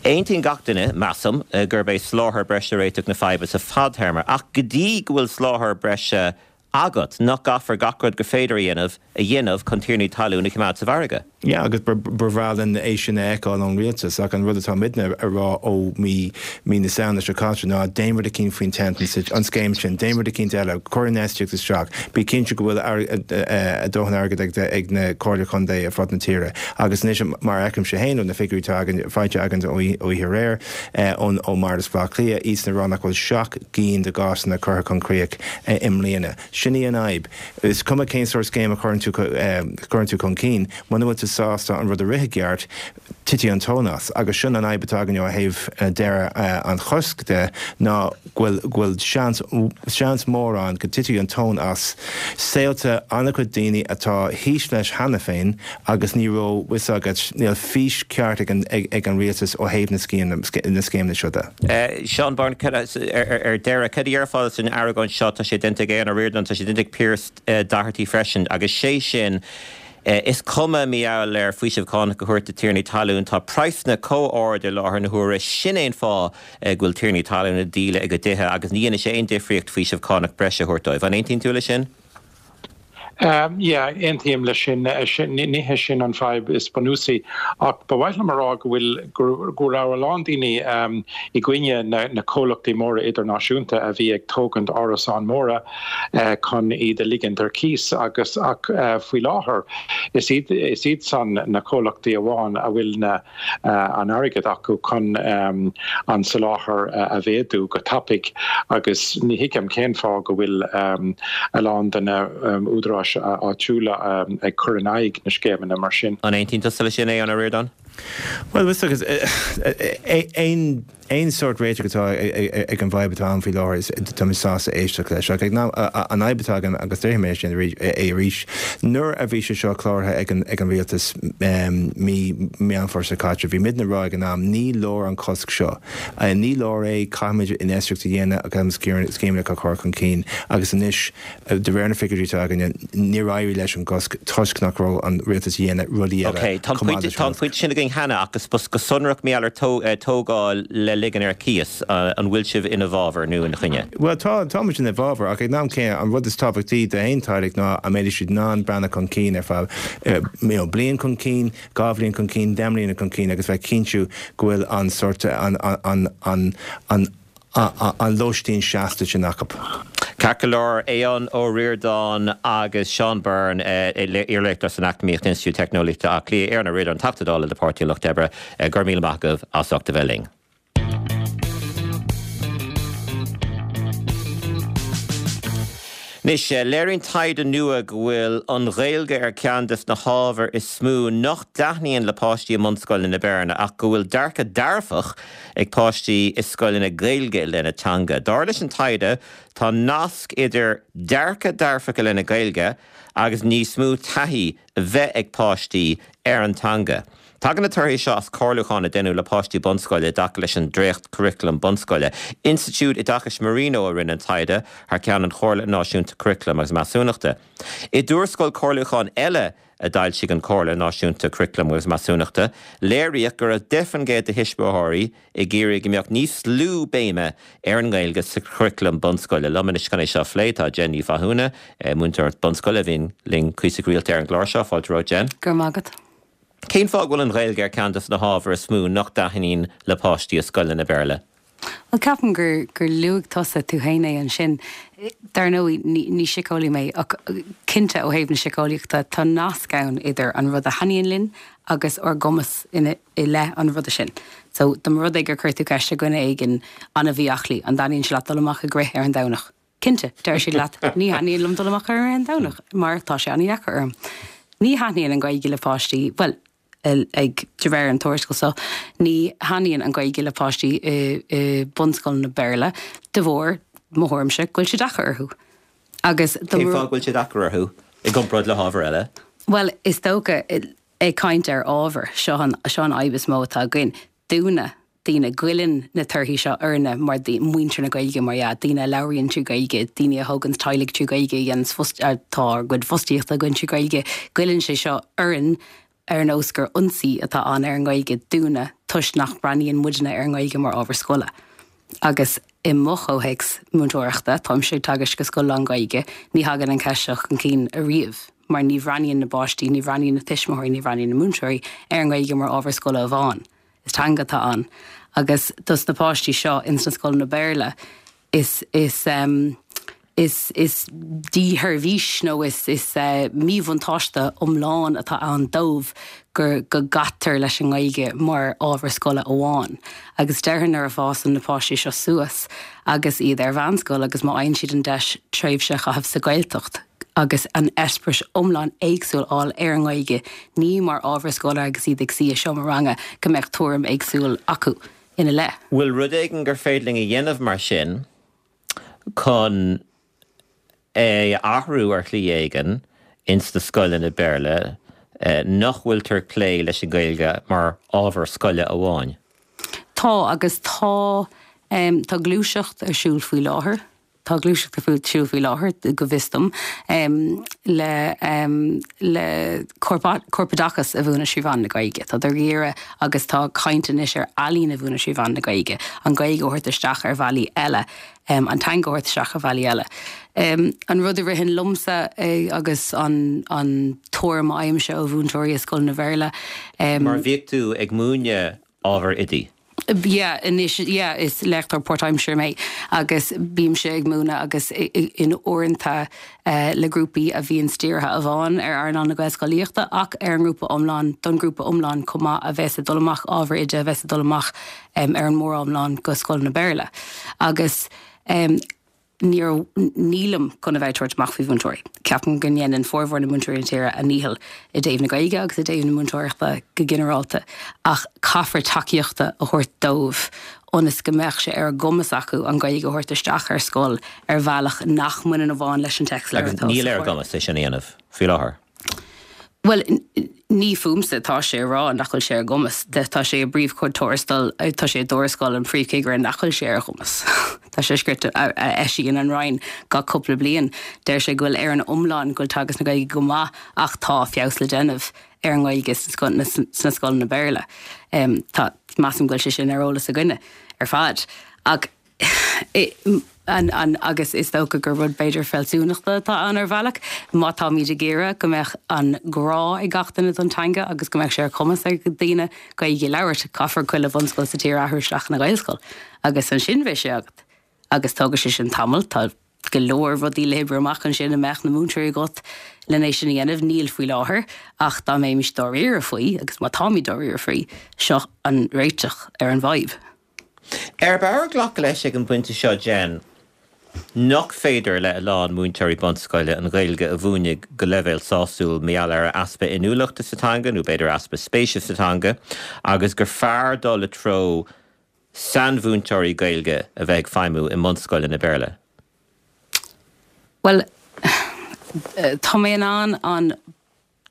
Aontaíonn gach duine, measaim, gurb é soláthar breise réiteach na faidhbe sa fadtéarma, ach go dtí go bhfuil soláthar breise agat, nach gcaithfear gach rud gur féidir a dhéanamh a dhéanamh chun tiarnaí talún a choimeád sa mhargadh? Yeah, agus ba bhreá linn é sin a fheiceáil ón rialtas, ach an rud atá muidne a rá ó mí mí na Samhna seo caite ná déan rud eicínt faoin tent, an scéim sin, déan rud eicínt eile, cuir infheistíocht isteach, bí cinnte go bhfuil a dóthain airgid ag na Comhairle Contae ar fud na tíre. Agus anois, mar a fheicimse féin ó na figiúirí atá againn, faighte againn ó oíche aréir, ón ó mBardas Bhaile Átha Cliath, iadsan ag rá nach bhfuil 7 gcinn de gcásanna curtha chun críoch i mbliana. Sin í an fhadhb. Is cuma cén sórt scéim a chuireann tú chuireann tú chun cinn, muna bhfuil tú sásta an rud a rith i gceart, titfidh an tóin as. Agus sin an fhadhb atá againn ó thaobh deireadh an choisc de, ná go bhfuil go bhfuil seans seans mór ann go dtitfidh an tóin as saolta an-chuid daoine atá thíos leis cheana féin agus ní raibh 'fhios agat, níl fís ceart ag an ag an rialtas ó thaobh na na scéimeanna seo de. Seán Byrne, ar deireadh, cad a déarfá san argóint seo, tá sé déanta ag Aodhán Ó Ríordáin, tá sé déanta ag Pearse Doherty freisin, agus sé sin, is cuma mar gheall ar faoiseamh cánach a thabhairt do tiarnaí talún, tá praghsanna chomh ard i láthair na huaire, sin é an fáth go bhfuil tiarnaí talún ag díol a gcuid tithe agus ní dhéanfaidh sé aon difríocht faoiseamh cánach breise a thabhairt dóibh. An aontaíonn tú leis sin? Yeah, aontaím leis sin. Ní hé sin an fadhb is bunúsaí. Ach ba mhaith liom a rá go bhfuil, go raibh a lán daoine i gcoinne na comhlachtaí móra idirnáisiúnta a bhí ag tógaint árasáin móra chun iad a ligint ar cíos agus ach faoi láthair is iad, is iad san na comhlachtaí amháin a bhfuil na an airgead acu chun an soláthar a mhéadú go tapaidh agus ní thuigim cén fáth go bhfuil a lán de na údaráis áitiúla ag cur in aghaidh na scéimeanna mar sin. An aontaíonn tusa leis sin, a Aodháin Ó Ríordáin? Bhuel, aon Aon sórt réiteach atá ag an bhfadhb atá ann faoi láthair, tá mé sásta éisteacht leis. Ach an fhadhb atá agam, agus déarfaidh mé sin é arís, nuair a bhí sé seo cláraithe ag an rialtas mí Meán Fómhair seo caite, bhí muidne ag rá ag an am, ní leor an cosc seo. Ní leor é, caithfimid infheistíocht a dhéanamh agus scéimeanna a chur chun cinn. Agus anois, De réir na figiúirí atá againne, níor éirigh leis an gcosc toisc nach raibh an rialtas a dhéanamh rudaí eile Ok, tá an chomh maith pointe, leis tá an an pointe sin againn cheana ach go sonrach mar gheall ar tógáil le ligean ar cíos, an bhfuil sibh ina bhfabhar nó ina choinne? Bhuel, tá, tá muid ina bhfabhar ach ag an am céanna, an rud is tábhachtaí d'aon teaghlach ná an mbeidh siad in ann breathnú chun cinn ar feadh, you know, bliain chun cinn, 2 bhliain chun cinn, 10 mbliana chun cinn agus bheith cinntiú go bhfuil an sórt, an, an, an, an, an lóistín seasta sin acu. Ceart go leor, Aodhán Ó Ríordáin agus Seán Byrne, iarléachtóir san Eacnamaíocht, Institiúid Teicneolaíochta Átha Cliath, Aodhán Ó Ríordáin, Teachta Dála le Páirtí an Lucht Oibre, go raibh míle maith agaibh as ucht a bheith linn. Anois, léiríonn taighde nua go bhfuil an Ghaeilge ar cheann de na hábhair is mó nach dtaitníonn le páistí i mbunscoileanna Béarla ach go bhfuil dearcadh dearfach ag páistí i scoileanna Gaeilge i leith na teanga. Dar leis an taighde, tá nasc idir dearcadh dearfach i leith na Gaeilge agus níos mó taithí a bheith ag páistí ar an teanga. Tagann na torthaí seo as comhairliúchán a deineadh le páistí bunscoile i dtaca leis an dréacht-churaclam bunscoile. Institiúid Oideachais Marino a rinne an taighde thar ceann an Chomhairle Náisiúnta Curaclaim agus Measúnachta. I dtuarascáil comhairliúcháin eile a d'fhoilsigh an Chomhairle Náisiúnta Curaclaim agus Measúnachta, léiríodh go raibh 10% de thuismitheoirí ag iarraidh go mbeadh níos lú béime ar an nGaeilge sa churaclam bunscoile. Liom anois chun é seo a phlé tá Jen Ní Mhathúna, múinteoir bunscoile a bhíonn linn cuíosach rialta ar an gclár seo. Fáilte romhat, Jen. Go raibh maith agat. Cén fáth go bhfuil an Ghaeilge ar ceann de na hábhair is mó nach dtaitníonn le páistí i scoileanna Béarla? Bhuel, ceapaim gur gur luaigh tusa tú féin é ansin. Dar ndóigh, ní ní síceolaí mé, ach cinnte ó thaobh na síceolaíochta, tá nasc ann idir an rud a thaitníonn linn agus ár gcumas ina i leith an ruda sin. So, dá mba rud é gur chuir tú ceist ar dhuine éigin an-mhí-aclaí, an dtaitníonn sé leat dul amach ag rith ar an Domhnach? Cinnte, deir siad leat, ní thaitníonn liom dul amach ar an rith an Domhnach mar tá sé an-dheacair orm. Ní thaitníonn an Ghaeilge le páistí, bhuel, ag, de réir an tuarascáil seo, ní thaitníonn an Ghaeilge le páistí i, i bunscoileanna Béarla de bharr, mo thuairimse, go bhfuil sé deacair orthu. Agus dá Cén fáth go bhfuil sé deacair orthu i gcomparáid le hábhair eile? Bhuel, is dócha, ag caint ar ábhar, seo an, seo an fhadhb is mó atá againn. Dúinne, daoine, goilleann na torthaí seo orainne mar muintir na Gaeilge, mar dhea, daoine a labhraíonn trí Ghaeilge, daoine a thóganns teaghlaigh trí Ghaeilge, a dhéananns fost, tá ár gcuid fostaíochta againn trí Ghaeilge, goilleann sé seo orainn ar nós gur ionsaí atá ann ar an nGaeilge dúinne toisc nach mbreathnaíonn muidne ar an nGaeilge mar ábhar scoile. Agus i mo chomhthéacs múinteoireachta, táimse ag teagasc i scoil lán-Ghaeilge, ní thagann an cheist seo chun cinn ariamh mar ní bhreathnaíonn na páistí, ní bhreathnaíonn na tuismitheoirí, ní bhreathnaíonn na múinteoirí ar an nGaeilge mar ábhar scoile amháin. Is teanga atá ann. Agus dos na páistí seo ins na scoileanna Béarla, is, is, is, is dísheirbhís nó is, is míbhuntáiste iomlán atá ann dóibh gur, go gcaitear leis an nGaeilge mar ábhar scoile amháin. Agus déarfainn nuair a fásann na páistí seo suas agus iad ar mheánscoil agus má fhaigheann siad an deis tréimhse a chaitheamh sa Ghaeltacht, agus an eispéireas iomlán éagsúil a fháil ar an nGaeilge, ní mar ábhar scoile agus iad ag suí i seomra ranga, go mbeadh tuairim éagsúil acu ina leith. Bhfuil rud éigin gur féidir linn a dhéanamh mar sin chun é a athrú ar shlí éigin ins na scoileanna Béarla nach bhfuiltear ag plé leis an Ghaeilge mar ábhar scoile amháin? Tá, agus tá, tá gluaiseacht ar siúl faoi láthair. Tá gluaiseacht ar siúl faoi láthair, go bhfios dom, le le corpoideachas a mhúineadh trí mheán na Gaeilge. Tá ag iarraidh agus tá caint anois ar ealaín a mhúineadh trí mheán na Gaeilge, an Ghaeilge a thabhairt isteach ar bhealaí eile, an teanga a thabhairt isteach ar bhealaí eile. An rud a ritheann liomsa agus an an tuairim a fhaighimse ó mhúinteoirí i scoileanna Bhéarla, Mar bhíodh tú ag múineadh ábhar oidí. Yeah, anois, yeah, is léachtóir páirtaimseartha mé agus bímse ag múineadh agus in uaireanta le grúpaí a bhíonn dírithe amháin ar earnáil na Gaelscolaíochta ach ar an ngrúpa iomlán, don ghrúpa iomlán chomh maith a bheas ag dul amach, ábhar oide a bheas ag dul amach ar an móriomlán go scoileanna Béarla. Agus. Níor, nílim chun a bheith ag tabhairt amach faoi mhúinteoirí. Ceapaim go ndéanann formhór na múinteoirí na tíre a ndícheall i dtaobh na Gaeilge agus i dtaobh na múinteoireachta go ginearálta ach caithfear tacaíochta a thabhairt dóibh ionas go mbeadh sé ar a gcumas acu an Ghaeilge a thabhairt isteach ar scoil ar bhealach nach mbaineann amháin leis an téacsleabhar Agus atá níl ar a gcumas é sin a dhéanamh faoi láthair. Bhuel, ní fúmsa atá sé a rá nach bhfuil sé ar a gcumas. Tá sé i bpríomhchuid tuarastail, tá sé i dtuarascáil an phríomhchigire nach bhfuil sé ar a gcumas. Tá sé scrite, a eisíonn an Roinn gach cúpla bliain. Deir sé go bhfuil ar an iomlán go bhfuil teagasc na Gaeilge go maith ach tá feabhas le déanamh ar an nGaeilge sna scoileanna Béarla. Tá, measaim go bhfuil sé sin ar eolas againne ar fad. Ach an agus is dócha gur rud b'fhéidir fealsúnachta atá ann ar bhealach, má táimid ag iarraidh go mbeadh an grá ag gach duine don teanga agus go mbeadh sé ar chumas ag daoine Gaeilge a labhairt, caithfear chuile bhunscoil sa tír a athrú isteach ina Ghaelscoil agus ansin beidh sé agat. Agus tógfaidh sé sin tamall, tá. go leor rudaí le hoibriú amach ansin an mbeadh na múinteoirí agat len é sin a dhéanamh. Níl faoi láthair ach dá mbeimis dáiríre faoi, agus má táimid dáiríre faoi, seo an réiteach ar an bhfadhb. Arb fhearr glacadh leis ag an bpointe seo, Jen, nach féidir le a lán múinteoirí bunscoile an Ghaeilge a mhúineadh go leibhéal sásúil mar gheall ar easpa inniúlachta sa teanga nó b'fhéidir easpa spéise sa teanga agus gur fearr dul i dtreo sainmhúinteoirí Gaeilge a bheith ag feidhmiú i mbunscoileanna Béarla? Bhuel, tá mé in ann an,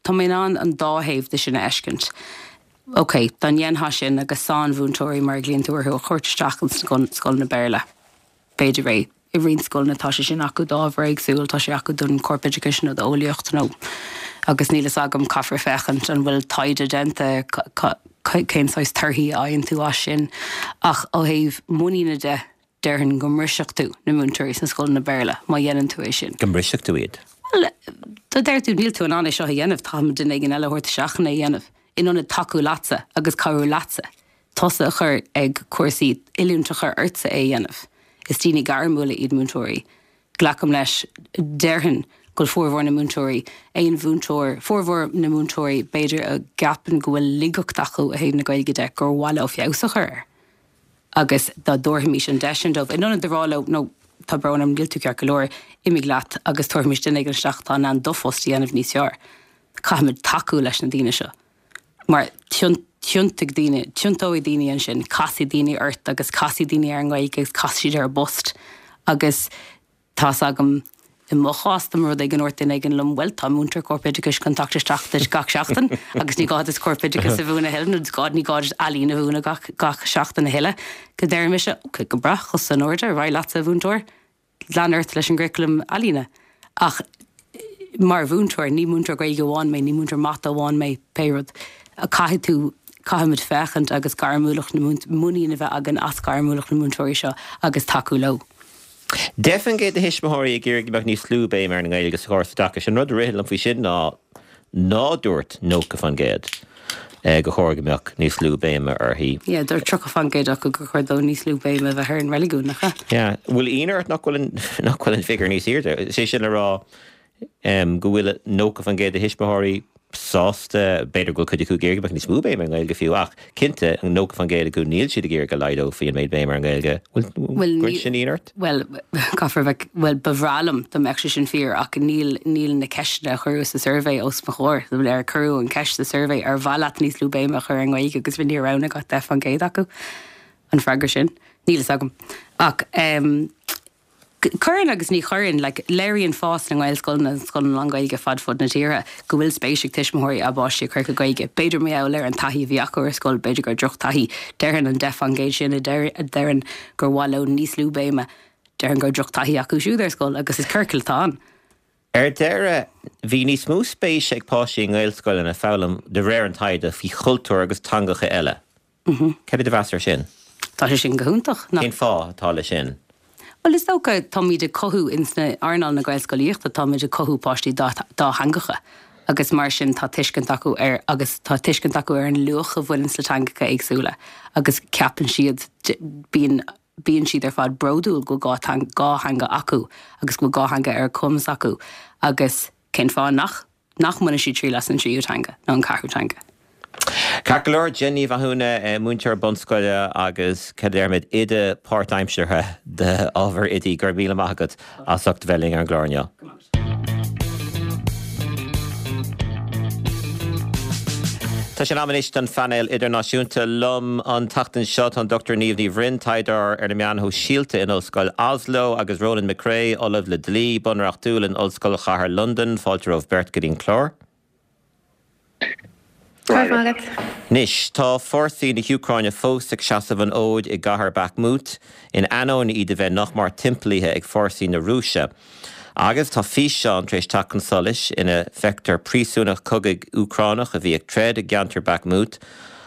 tá mé in ann an dá thaobh de sin a fheiscint. Ok, dá ndéanfá sin agus sainmhúinteoirí, mar a ghlaonn tú orthu, a thabhairt isteach ins na scoileanna Béarla, b'fhéidir é. I roinnt scoileanna tá sé sin acu d'ábhar éagsúil, tá sé acu don chorpoideachas nó d'eolaíocht nó, agus níl fhios agam, caithfear féachaint an bhfuil taighde déanta cén saghas torthaí a fhaigheann tú as sin. Ach ó thaobh muiníne de, déarfainn go mbrisfeadh tú na múinteoirí sna scoileanna Béarla má dhéanann tú é sin. Go mbrisfeadh tú iad? Bhuel, dá deir tú níl tú in ann é seo a dhéanamh, caithfimid duine éigin eile a thabhairt isteach chun é a dhéanamh, in ionad tacú leatsa agus cabhrú leatsa. tusa a chur ag cúrsaí, oiliúint a chur ortsa é a dhéanamh. Is daoine gairmiúla iad múinteoirí. Glacaim leis, déarfainn, go bhfuil formhór na múinteoirí, aon mhúinteoir, formhór na múinteoirí b'fhéidir a gceapann go bhfuil laigeacht acu ó thaobh na Gaeilge de, gur mhaith leo feabhas a chur air. Agus dá dtabharfaimis an deis sin dóibh, in ionad a rá leo, no, tá brón orm, níl tú ceart go leor, imigh leat agus tabharfaimis duine éigin isteach atá in ann do phost a dhéanamh níos fearr. Caithfimid tacú leis na daoine seo. Mar tiontóidh daoine, tiontóidh daoine ansin, casfaidh daoine ort agus casfaidh daoine ar an nGaeilge agus casfaidh siad ar a bpost. Agus tá's agam, i mo chás, dá mba rud é go ndúirt duine éigin liom, bhuel, tá múinteoir corpoideachais chun teacht isteach duit gach seachtain agus ní gá duit corpoideachas a mhúineadh a thuilleadh nó ní gá duit ealaín a mhúineadh gach, gach seachtain a thuilleadh, go ndéarfaidh mise, ok, go breá, cosa in airde, ar aghaidh leatsa, a mhúinteoir. Lean ort leis an gcuraclam ealaíne. Ach mar mhúinteoir, ní múinteoir Gaeilge amháin mé, ní múinteoir mata amháin mé, pé rud. Caithfidh tú, caithfimid féachaint agus gairmiúlacht na múint, muinín a bheith againn as gairmiúlacht na múinteoirí seo agus tacú leo. 10% de thuismitheoirí ag iarraidh go mbeadh níos lú béime ar an nGaeilge sa chóras oideachais. An rud a ritheann liom faoi sin ná ná dúirt 90% gur chóir go mbeadh níos lú béime uirthi. Yeah, dúirt 30% acu gur chóir dó níos lú béime a bheith ar an reiligiún, nach ea? Yeah. Bhfuil ionadh ort nach bhfuil an, nach bhfuil an figiúr níos airde? Is é sin le rá go bhfuil 90% de thuismitheoirí sásta, b'fhéidir go bhfuil cuid acu ag iarraidh go mbeadh níos mó béime ar an nGaeilge fiú, ach cinnte, 90% acu níl siad ag iarraidh go laghdófaí an méid béime ar an nGaeilge. Bhfuil, gcuireann sin ionadh ort? Bhuel, caithfear a bheith, bhuel, ba bhreá liom dá mbeadh sé sin fíor ach níl, níl na ceisteanna a cuireadh sa suirbhé os mo chomhair. Ar cuireadh an cheist sa suirbhé ar mhaith leat níos lú béime a chur ar an nGaeilge agus níor roghnaigh ach 10% acu an freagra sin. Níl fhios agam. Ach ehm, Cuireann agus ní chuireann. Like, léiríonn fás na nGaelscoileanna agus scoileanna lán-Ghaeilge fad fud na tíre go bhfuil spéis ag tuismitheoirí a bpáistí a chur go Gaeilge. B'fhéidir mar gheall ar an taithí a bhí acu ar scoil, b'fhéidir gur drochtaithí. Déarfainn an 10% sin a deireann gur mhaith leo níos lú béime, déarfainn go raibh drochtaithí acu siúd ar scoil agus is ciorcal atá ann. Ar deireadh, bhí níos mó spéise ag páistí i nGaelscoileanna foghlaim, de réir an taighde, faoi chultúir agus teangacha eile. Cad é do mheas air sin? Tá sé sin go hiontach, nach? Cén fáth atá leis sin? Bhuel, is dócha, táimid ag cothú, ins na earnáil na Gaelscolaíochta, táimid ag cothú páistí dátheangacha agus mar sin tá tuiscint acu ar, agus tá tuiscint acu ar an luach a bhaineanns le teangacha éagsúla agus ceapann siad, bíonn, bíonn siad ar fad bródúil go bhfuil dhá theanga acu agus go bhfuil dhá theanga ar a cumas acu agus cén fáth nach nach mbainfidh siad triail as an tríú teanga nó an ceathrú teanga. Ceart go leor, Jen Ní Mhathúna, múinteoir bunscoile agus, cad a déarfaimid, oide páirtaimseartha d'ábhar oidí, go raibh míle maith agat as ucht a bheith linn ar an gclár inniu. Tá sé in am anois don phainéal idirnáisiúnta. Liom an tseachtain seo tá an Dr Niamh Ní Bhroin, taighdeoir ar na meáin shóisialta in Ollscoil Oslo, agus Ronan McCrea, Ollamh le Dlí Bunreachtúil in Ollscoil Chathair Londan. Fáilte romhaibh beirt go dtí an clár. Go raibh maith agat. Anois, tá fórsaí na hÚcráine fós ag seasamh an fhóid i gcathair Bakhmut, in ainneoin iad a bheith nach mar timpeallaithe ag fórsaí na Rúise. Agus tá físeán tar éis teacht chun solais ina bhfeictear príosúnach cogaidh Úcránach a bhí ag troid i gceantar Bakhmut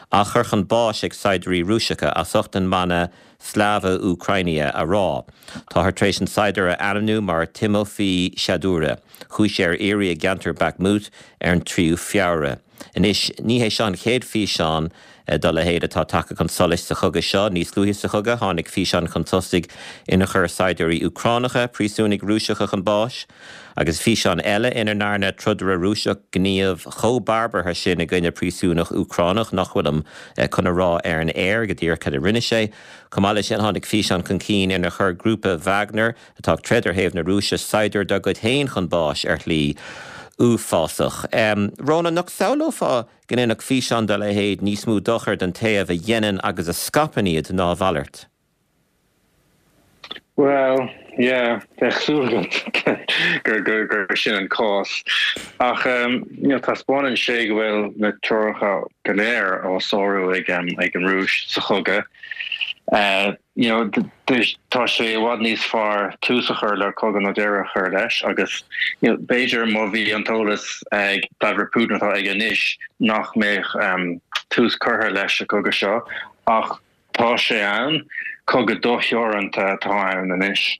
á chur chun báis ag saighdiúirí Rúiseacha as ucht an mana 'Slava Ukraini' a rá. Táthar tar éis an saighdiúir a ainmniú mar Timofii Shadura. Chuaigh sé ar iarraidh i gceantar Bakhmut ar an 3ú Feabhra. Anois, ní hé seo an chéad físeán dá leithéid atá tagtha chun solais sa chogadh seo. Níos luaithe sa chogadh, tháinig físeán chun tosaigh inar chuir saighdiúirí Úcránacha príosúnaigh Rúiseacha chun báis, agus físeán eile ina ndearna trodaire Rúiseach gníomh chomh barbartha sin i gcoinne príosúnach Úcránach nach bhfuilim chun a rá ar an aer go díreach cad a rinne sé. Chomh maith leis sin, tháinig físeán chun cinn inar chuir grúpa Wagner, atá ag troid ar thaobh na Rúise, saighdiúir dá gcuid féin chun báis ar shlí uafásach. Rónán, nach samhlófá go ndéanfadh físeán dá leithéid níos mó dochair don taobh a dhéanann agus a scaipeann iad ná a mhalairt? Bhuel, yeah, bheadh súil agat gur gur sin an cás. Ach you know, taispeánann sé go bhfuil na treoracha go léir á sárú ag ag an Rúis sa chogadh. You know, tá sé i bhfad níos fearr tús a chur le cogadh ná deireadh a chur leis agus you know, b'fhéidir má bhí an t-eolas ag Vladimir Putin atá aige anois nach mbeadh tús curtha leis an gcogadh seo ach tá sé ann, cogadh dotheoranta atá ann anois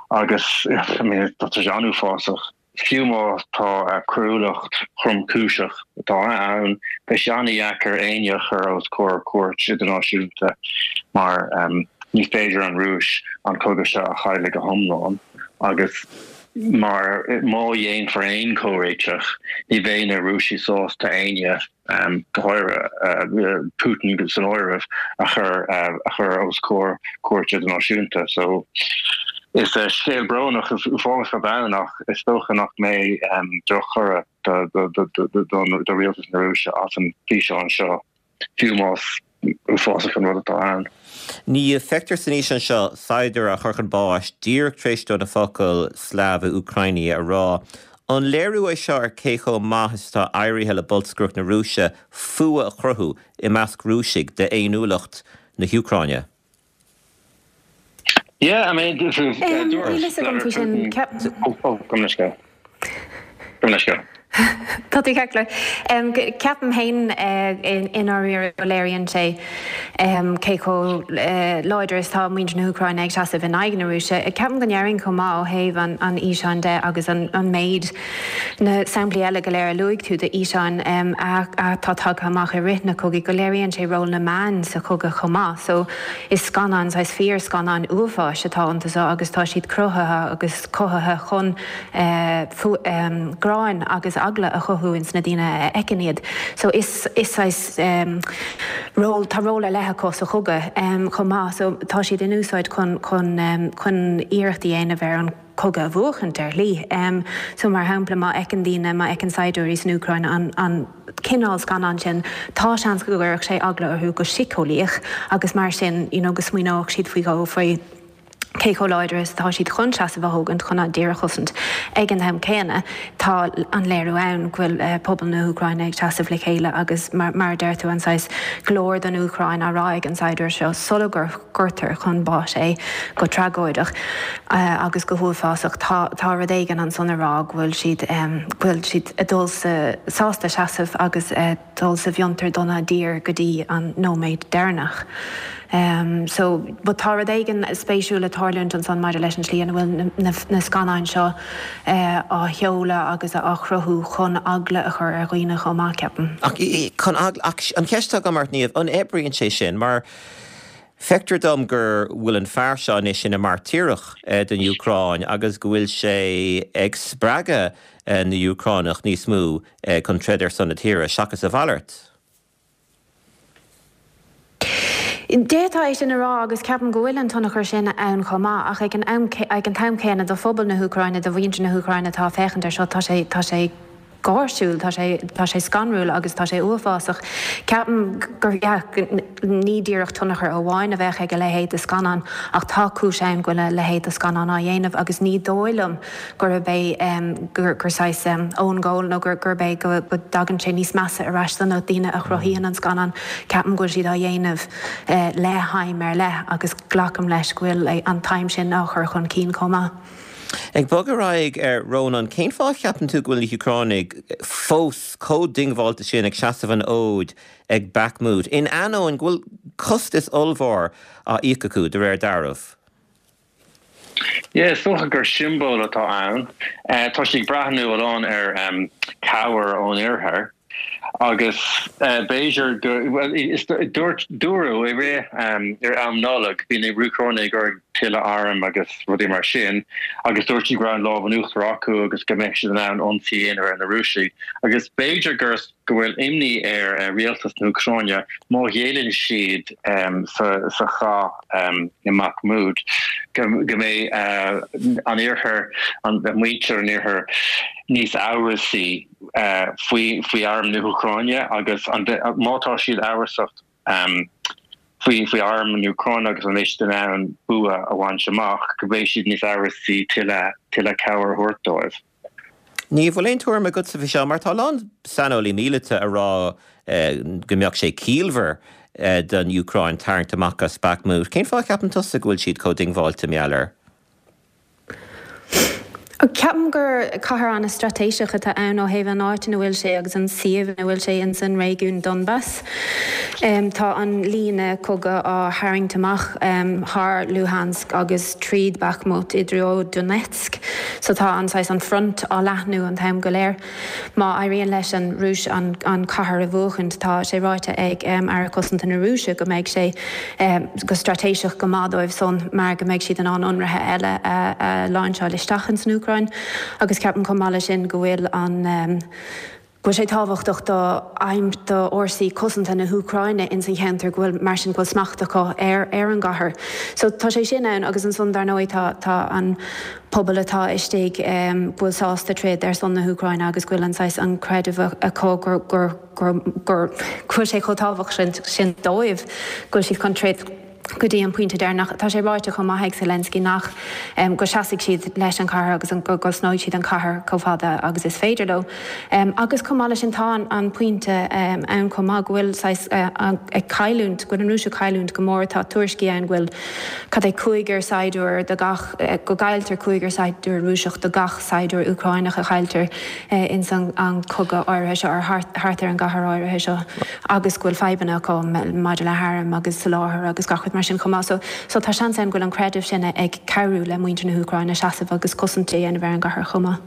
agus I mean, tá sé an-uafásach. Fiú má tá coiriúlacht thromchúiseach atá ann, beidh sé an-dheacair éinne a chur os comhair cúirt idirnáisiúnta mar ní féidir an Rúis an cogadh seo a chailleadh go hiomlán agus mar má dhéanfar aon chomhréiteach ní bheidh na Rúisigh sásta éinne go háirithe Putin san áireamh, a chur a chur os comhair cúirt idirnáisiúnta. So is scéal brónach is uafásach atá ann ach is dócha nach mbeidh drochthoradh do rialtas na Rúise as an bhfíseán seo, fiú más uafásach an rud atá ann. Niamh, feictear san fhíseán seo saighdiúir á chur chun báis díreach tar éis dó na focail Slava Ukraini a rá. An léiriú é seo ar cé chomh maith is atá éirithe le bolscaireacht na Rúise fuath a chruthú i measc Rúisigh d'fhéiniúlacht na hÚcráine? Yeah, I mean, dúirt Níl a fhios agam faoi sin. Oh, oh, gabh mo leithscéal. Gabh mo leithscéal. Tá tú ceart go leor. Ceapaim féin i ndáiríre go léiríonn sé cé chomh láidir is atá muintir na hÚcráine ag seasamh in aghaidh na Rúise. Ceapaim go ndéarfainn chomh maith ó thaobh an fhíseáin de agus an méid, na samplaí eile go léir a luaigh tú d'fhíseáin atá tagtha amach i rith na cogaidh, go léiríonn sé ról na meán sa chogadh chomh maith. So is scannáin, saghas fíorscannáin uafáis atá iontu so agus tá siad cruthaithe agus cothaithe chun gráin agus eagla a chothú ins na daoine a fheiceann iad. So is is saghas ról, tá ról ar leith acu sa chogadh chomh maith. So tá siad in úsáid chun chun chun iarracht a dhéanamh ar an cogadh a bhuachaint ar shlí. So mar shampla má fheiceann daoine, má fheiceann saighdiúirí san Úcráin an an cineál scannán sin, tá seans go gcuirfeadh sé eagla orthu go síceolaíoch agus mar sin you know go smaoineodh siad faoi dhó faoi cé chomh láidir is atá siad chun seasamh a thógaint chun a dtír a chosaint. Ag an am céanna, tá an léiriú ann go bhfuil pobal na hÚcráine ag seasamh le chéile agus, mar a deir tú, an saghas glóir don Úcráin á rá ag an saighdiúir seo sula gcuirtear chun báis é go tragóideach agus go huafásach. Tá tá rud éigin ansan a rá go bhfuil siad go bhfuil siad ag dul sa sásta seasamh agus dul sa bhfiontar dona dtír go dtí an nóiméad deireanach. So, but tá rud éigin spéisiúil ag tarlúint ansan maidir leis an tslí ina bhfuil na scannáin seo á sheoladh agus á chruthú chun eagla a chur ar dhaoine chomh maith, ceapaim. Ach chun eagla, ach an cheist atá agam ort, Niamh, an oibríonn sé sin? Mar feictear dom go bhfuil an fear seo anois ina mhairtíreach don Úcráin agus go bhfuil sé ag spreagadh na hÚcránach níos mó chun troid ar son na tíre, seachas a mhalairt. D'fhéadfá é sin a rá agus ceapaim go bhfuil an tionchar sin ann chomh maith ach ag an am ag an t-am céanna do phobal na hÚcráine, do mhuintir na hÚcráine atá ag féachaint air seo, tá sé tá sé gáirsiúil, tá sé tá sé scanrúil agus tá sé uafásach. Ceapaim gur yeah ní díreach tionchar amháin a bheadh ag a leithéid de scannán ach tá cúis ann go bhfuil a leithéid de scannán á dhéanamh agus ní dóigh liom gurb é gur saghas own goal nó gurb é go dtagann sé níos measa ar ais do na daoine a chruthaíonn an scannán. Ceapaim go bhfuil siad á dhéanamh le haidhm ar leith agus glacaim leis go bhfuil an t-aidhm sin á chur chun cinn chomh maith. Ag bogadh ar aghaidh, a Rónáin, cén fáth a cheapann tú go bhfuil na hÚcránaigh fós chomh diongbháilte sin ag seasamh an fhóid ag Bakhmut, in ainneoin go bhfuil costas ollmhór á íoc acu, de réir dealraimh? Yeah, is dócha gur siombail atá ann. Tá siad ag breathnú a lán ar cabhair ón oirthear. Agus b'fhéidir go, bhuel, is dúirt, dúradh i rith, ar am Nollag, bhí na hÚcránaigh ag iarraidh tuilleadh arm agus rudaí mar sin agus dúirt siad go raibh an lámh in uachtar acu agus go mbeadh siad in ann ionsaí a dhéanamh ar na Rúisigh. Agus b'fhéidir gur, go bhfuil imní ar rialtas na hÚcráine má ghéilleann siad sa chath i mBakhmut go mbeidh an iarthar, muintir an iarthair níos amhrasaí faoi faoi arm na hÚcráine agus má tá siad amhrasach faoi faoi arm na hÚcráine agus an mbeidh siad in ann bua a bhaint amach, go mbeidh siad níos amhrasaí tuilleadh tuilleadh cabhair a thabhairt dóibh. Niamh, bhfuil aon tuairim agatsa faoi seo? Mar tá a lán saineolaí míleata ag rá go mbeadh sé ciallmhar don Úcráin tarraingt amach as Bakhmut. Cén fáth a cheapann tusa go bhfuil siad chomh diongbháilte mar gheall air? Ceapaim gur cathair an-straitéiseach atá ann ó thaobh an áit ina bhfuil sé agus an suíomh ina bhfuil sé ins an réigiún Donbas. Tá an líne cogaidh á tharraingt amach thar Luhansk agus tríd Bakhmut i dtreo Donetsk. So tá an saghas an front á leathnú an t-am go léir. Má éiríonn leis an Rúis an cathair a bhuachaint, tá sé ráite ag Aire Cosanta na Rúise go mbeidh sé go straitéiseach go maith dóibh san mar go mbeidh siad in ann ionraithe eile a láinseáil isteach ins an Úcráin. Agus ceapaim chomh maith leis sin go bhfuil an. go bhfuil sé tábhachtach do aidhm do fhórsaí cosanta na hÚcráine ins an cheantar go bhfuil mar sin go bhfuil smacht acu ar ar an gcathair. So tá sé sin ann agus ansan dar ndóigh tá tá an pobal atá istigh go bhfuil sásta troid ar son na hÚcráine agus go bhfuil an saghas an creideamh acu gur gur gur gur go bhfuil sé chomh tábhachtach sin dóibh go bhfuil siad chun troid go dtí an pointe deireanach. Tá sé ráite chomh maith ag Zelensky nach go seasfaidh siad leis an chathair agus go gcosnóidh siad an chathair chomh fada agus is féidir leo. Agus chomh maith leis sin tá an pointe ann chomh maith go bhfuil saghas ag cailliúint, go bhfuil an Rúis ag cailliúint go mór. Tá tuairiscí ann go bhfuil cad é cúigear saighdiúir do gach, go gcailltear cúigear saighdiúir Rúiseach do gach saighdiúir Úcráineach a chailltear ins an cogadh áirithe seo, ar thart ar an gcathair áirithe seo. agus go bhfuil fadhbanna acu maidir le hairm agus soláthar agus gach rud mar sin chomh maith. So, so tá seans ann go bhfuil an creideamh sin ag cabhrú le muintir na hÚcráine seasamh agus cosaint a dhéanamh ar an gcathair chomh maith.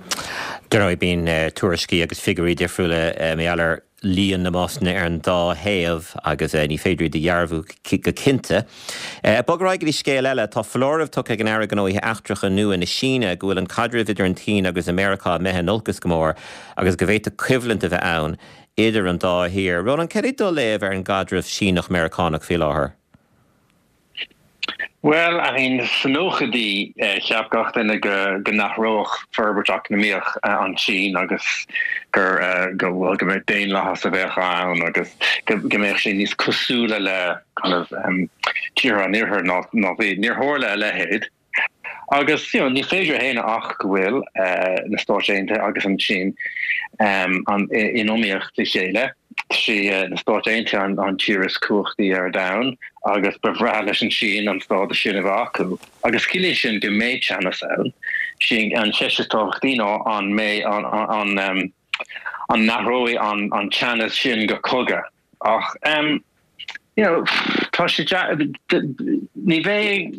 Dar ndóigh, bíonn tuairiscí agus figiúirí difriúla mar gheall ar líon na mbásanna ar an dá thaobh agus ní féidir iad a dhearbhú go cinnte. Ag bogadh ar aghaidh go dtí scéal eile, tá foláireamh tugtha ag an Aire Gnóthaí Eachtracha nua na Síne go bhfuil an caidreamh idir an tSín agus Meiriceá imithe in olcas go mór agus go bhféadfadh coimhlint a bheith ann idir an dá thír. Rónán, cad é do léamh ar an gcaidreamh Síneach-Meiriceánach faoi láthair? Bhuel, I mean, sna nóchaidí, cheap gach duine go go n-athródh forbairt eacnamaíoch an tSín agus gur go bhuel go mbeadh daonlathas a bheadh ann agus go go mbeadh sé níos cosúla le kind of tíortha an Iarthair ná ná bhí. Níor tharla a leithéid. Agus you know ní féidir a shéanadh ach go bhfuil na Stáit Aontaithe agus an tSín in iomaíocht le chéile. Sí na Stáit Aontaithe an tír is cumhachtaí ar domhan agus ba bhreá leis an tSín an stádas sin a bheith acu. Agus ciallaíonn sin go mbeidh teannas ann. Sí an cheist is tábhachtaí ná an mbeidh an an n-athróidh an teannas sin go cogadh. Ach you know tá sé ní bheidh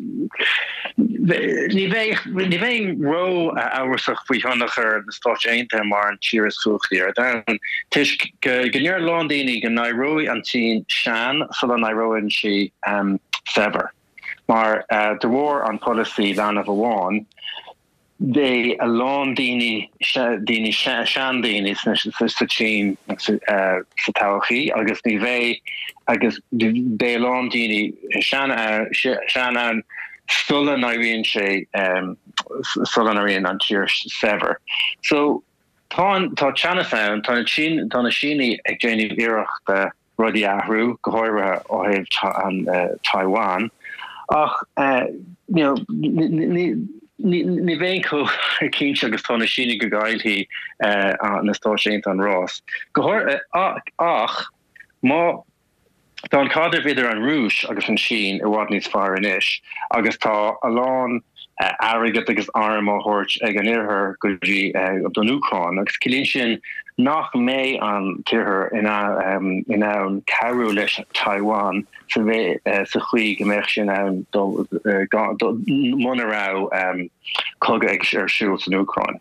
ní bheidh ní bheinn ró-amhrasach faoi thionchar na Stáit Aontaithe mar an tír is cumhachtaí ar domhan toisc go go ndeir a lán daoine go n-éireoidh an tSín sean sula n-éireoidh sí saibhir mar de bharr an polasaí leanbh amháin Beidh a lán daoine, daoine, seandaoine sa tSín sa todhchaí agus ní bheidh, agus beidh a lán daoine sean sean ann sula n-éiríonn sé, sula n-éiríonn an tír saibhir. So tá an, tá teannas ann, tá na Sín, tá na Sínigh ag déanamh iarrachta rudaí a athrú, go háirithe ó thaobh Taiwan. Ach you know ní bheinn chomh cinnte agus tá na Sínigh go gcaillfidh na Stáit Aontaithe an rás. Go háirithe ach má tá an caidreamh idir an Rúis agus an tSín i bhfad níos fearr anois agus tá a lán airgead agus airm á thabhairt ag an Iarthar go dtí don Úcráin agus ciallaíonn sin nach mbeidh an tIarthar in ann cabhrú leis Taiwan sa chaoi go mbeadh sé in ann dul muna raibh cogadh ar siúl san Úcráin.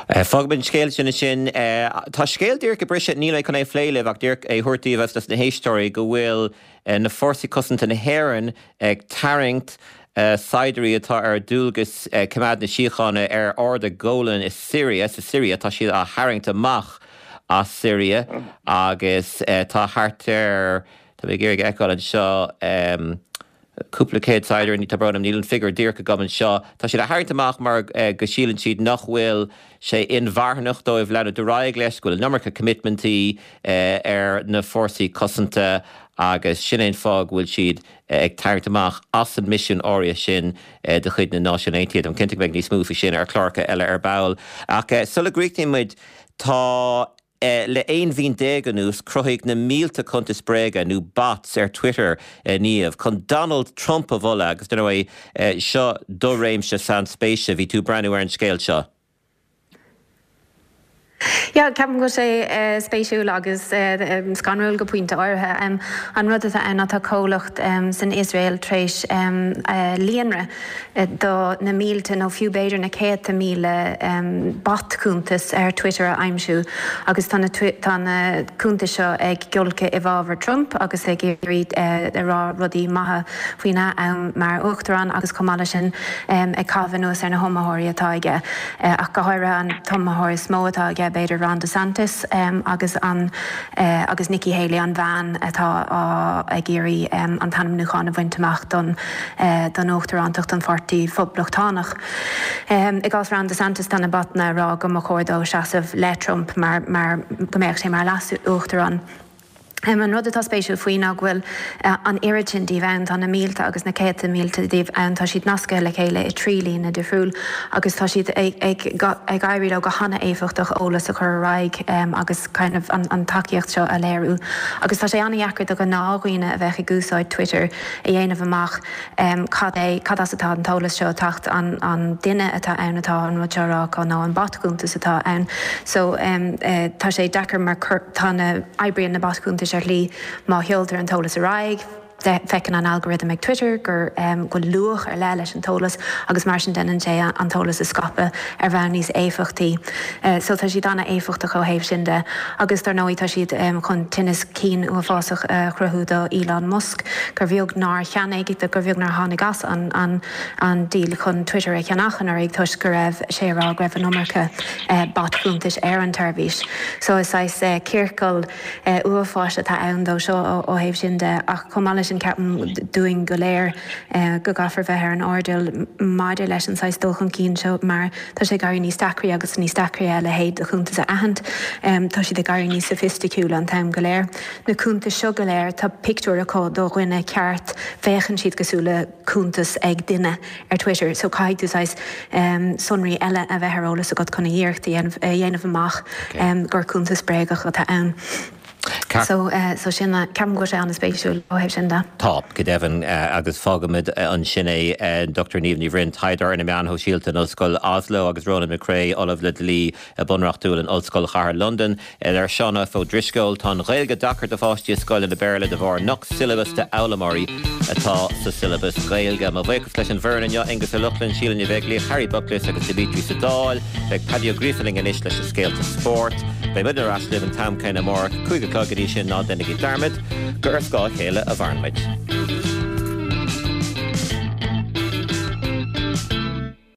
Fágfaimid an scéal sin ansin. Tá scéal díreach ag briseadh, níl mé chun é a phlé libh ach díreach é a thabhairt daoibh agus dos na héisteoirí go bhfuil na Fórsaí Cosanta na hÉireann ag tarraingt saighdiúirí atá ar dualgas coimeád na síochána ar Ard an Ghólain i Siria, sa Siria, tá siad á tharraingt amach as Siria agus tá thart ar, tá mé ag iarraidh a fheiceáil anseo, cúpla céad saighdiúir, tá brón orm, níl an figiúr díreach agam anseo. Tá siad á tharraingt amach mar go síleann siad nach bhfuil sé inmharthanach dóibh leanúint ar aghaidh leis, go bhfuil an iomarca coimitmintí ar na fórsaí cosanta agus sin é an fáth go bhfuil siad ag tarraingt amach as an misiún áirithe sin de chuid na Náisiún Aontaithe. Táim cinnte go mbeidh níos mó faoi sin ar chláracha eile ar ball. Ach sula gcríochnaíonn muid, tá. Le 11 mhí anuas, cruthaíodh na mílte cuntas bréige, nó bots, ar Twitter, a Niamh, chun Donald Trump a mholadh agus, dar ndóigh, seo do réimse sainspéise. Bhí tú ag breathnú ar an scéal seo. Yeah, ceapaim go bhfuil sé spéisiúil agus scanrúil go pointe áirithe. An rud atá ann ná tá comhlacht san Iosrael tar éis líonra do na mílte nó fiú b'fhéidir na céadta míle bot-chuntas ar Twitter a aimsiú agus tá na tá na cuntais seo ag giolcadh i bhfabhar Trump agus ag iarraidh a rá rudaí maithe faoina am mar uachtarán agus chomh maith leis sin ag caitheamh anuas ar na hiomaitheoirí atá aige ach go háirithe an t-iomaitheoir is mó atá aige b'fhéidir Ron DeSantis agus an agus Nikki Haley an bhean atá á ag iarraidh an t-ainmniúchán a bhaint amach don don uachtarántacht don Pháirtí Phoblachtánach. I gcás Ron DeSantis tá na botanna ag rá go mba chóir dó seasamh le Trump mar mar go mbeadh sé mar leas-uachtarán. An rud atá spéisiúil faoi ná go bhfuil an oiread sin díobh ann, tá na mílte agus na céadta mílte díobh ann, tá siad nasctha le chéile i dtrí líne difriúil agus tá siad ag ag éirí leo go hana-éifeachtach eolas a chur ar aghaidh agus kind of an tacaíocht seo a léiriú. Agus tá sé ana-dheacair do ghnáthdhaoine a bheadh ag úsáid Twitter a dhéanamh amach cad é, cad as atá an t-eolas seo ag teacht, an duine atá ann atá an rud seo a rá acu nó an bot-chuntas atá ann. So tá sé deacair mar tá na, oibríonn na bot-chuntais ar shlí má sheoltar an t-eolas ar aghaidh, feiceann an algorithm ag Twitter gur go bhfuil luach ar leith leis an t-eolas agus mar sin déanann sé an t-eolas a scaipeadh ar bhonn níos éifeachtaí. So tá siad an-éifeachtach ó thaobh sin de. Agus dar ndóigh tá siad chun tinneas cinn uafásach a chruthú do Elon Musk, gur bheag nár cheannaigh, gur bheag nár tháinig as an an deal chun Twitter a cheannach anuraidh toisc go raibh sé ag rá go raibh an iomarca bot-chuntais ar an tseirbhís. So is saghas ciorcal uafáis atá ann dó seo ó thaobh sin de. Ach chomh maith leis sin ceapaim dúinn go léir go gcaithfear bheith ar an airdeall maidir leis an saghas dul chun cinn seo mar Tá sé ag éirí níos deacraí agus níos deacraí a leithéid de chuntas a aithint. Tá siad ag éirí níos soifisticiúla an t-am go léir. Na cuntais seo go léir, tá pictiúr acu do dhuine ceart, féachann siad cosúil le cuntas ag duine ar Twitter. So caithfidh tú saghas sonraí eile a bheith ar eolas agat chun an iarracht a dhéanamh amach gur cuntas bréagach atá ann. So, so sin, ceapaim go bhfuil sé an-spéisiúil ó thaobh sin de. Tá, go deimhin, agus fágfaimid ansin é. Dr Niamh Ní Bhroin, taighdeoir ar na meáin shóisialta in Ollscoil Oslo agus Ronan McCrea, Ollamh le Dlí Bunreachtúil in Ollscoil Chathair Londan. Ar Seán F. Ó Drisceoil, tá an Ghaeilge deacair do pháistí i scoileanna Béarla de bharr nach siollabas d'fhoghlaimeoirí atá sa siollabas Gaeilge. Mo bhuíochas leis an bhfoireann inniu, Aengus Ó Lochlainn, Síle Ní Bheaglaoich, Harry Buckless agus Dimitri sa Dáil. Beidh Paddy Ó Gríofa linn anois leis na scéalta spóirt. Beidh muid ar ais libh an t-am céanna amárach, 5 a chlog go dtí sin ná déanaigí dearmad gur ar scáth a chéile a mhaireann muid.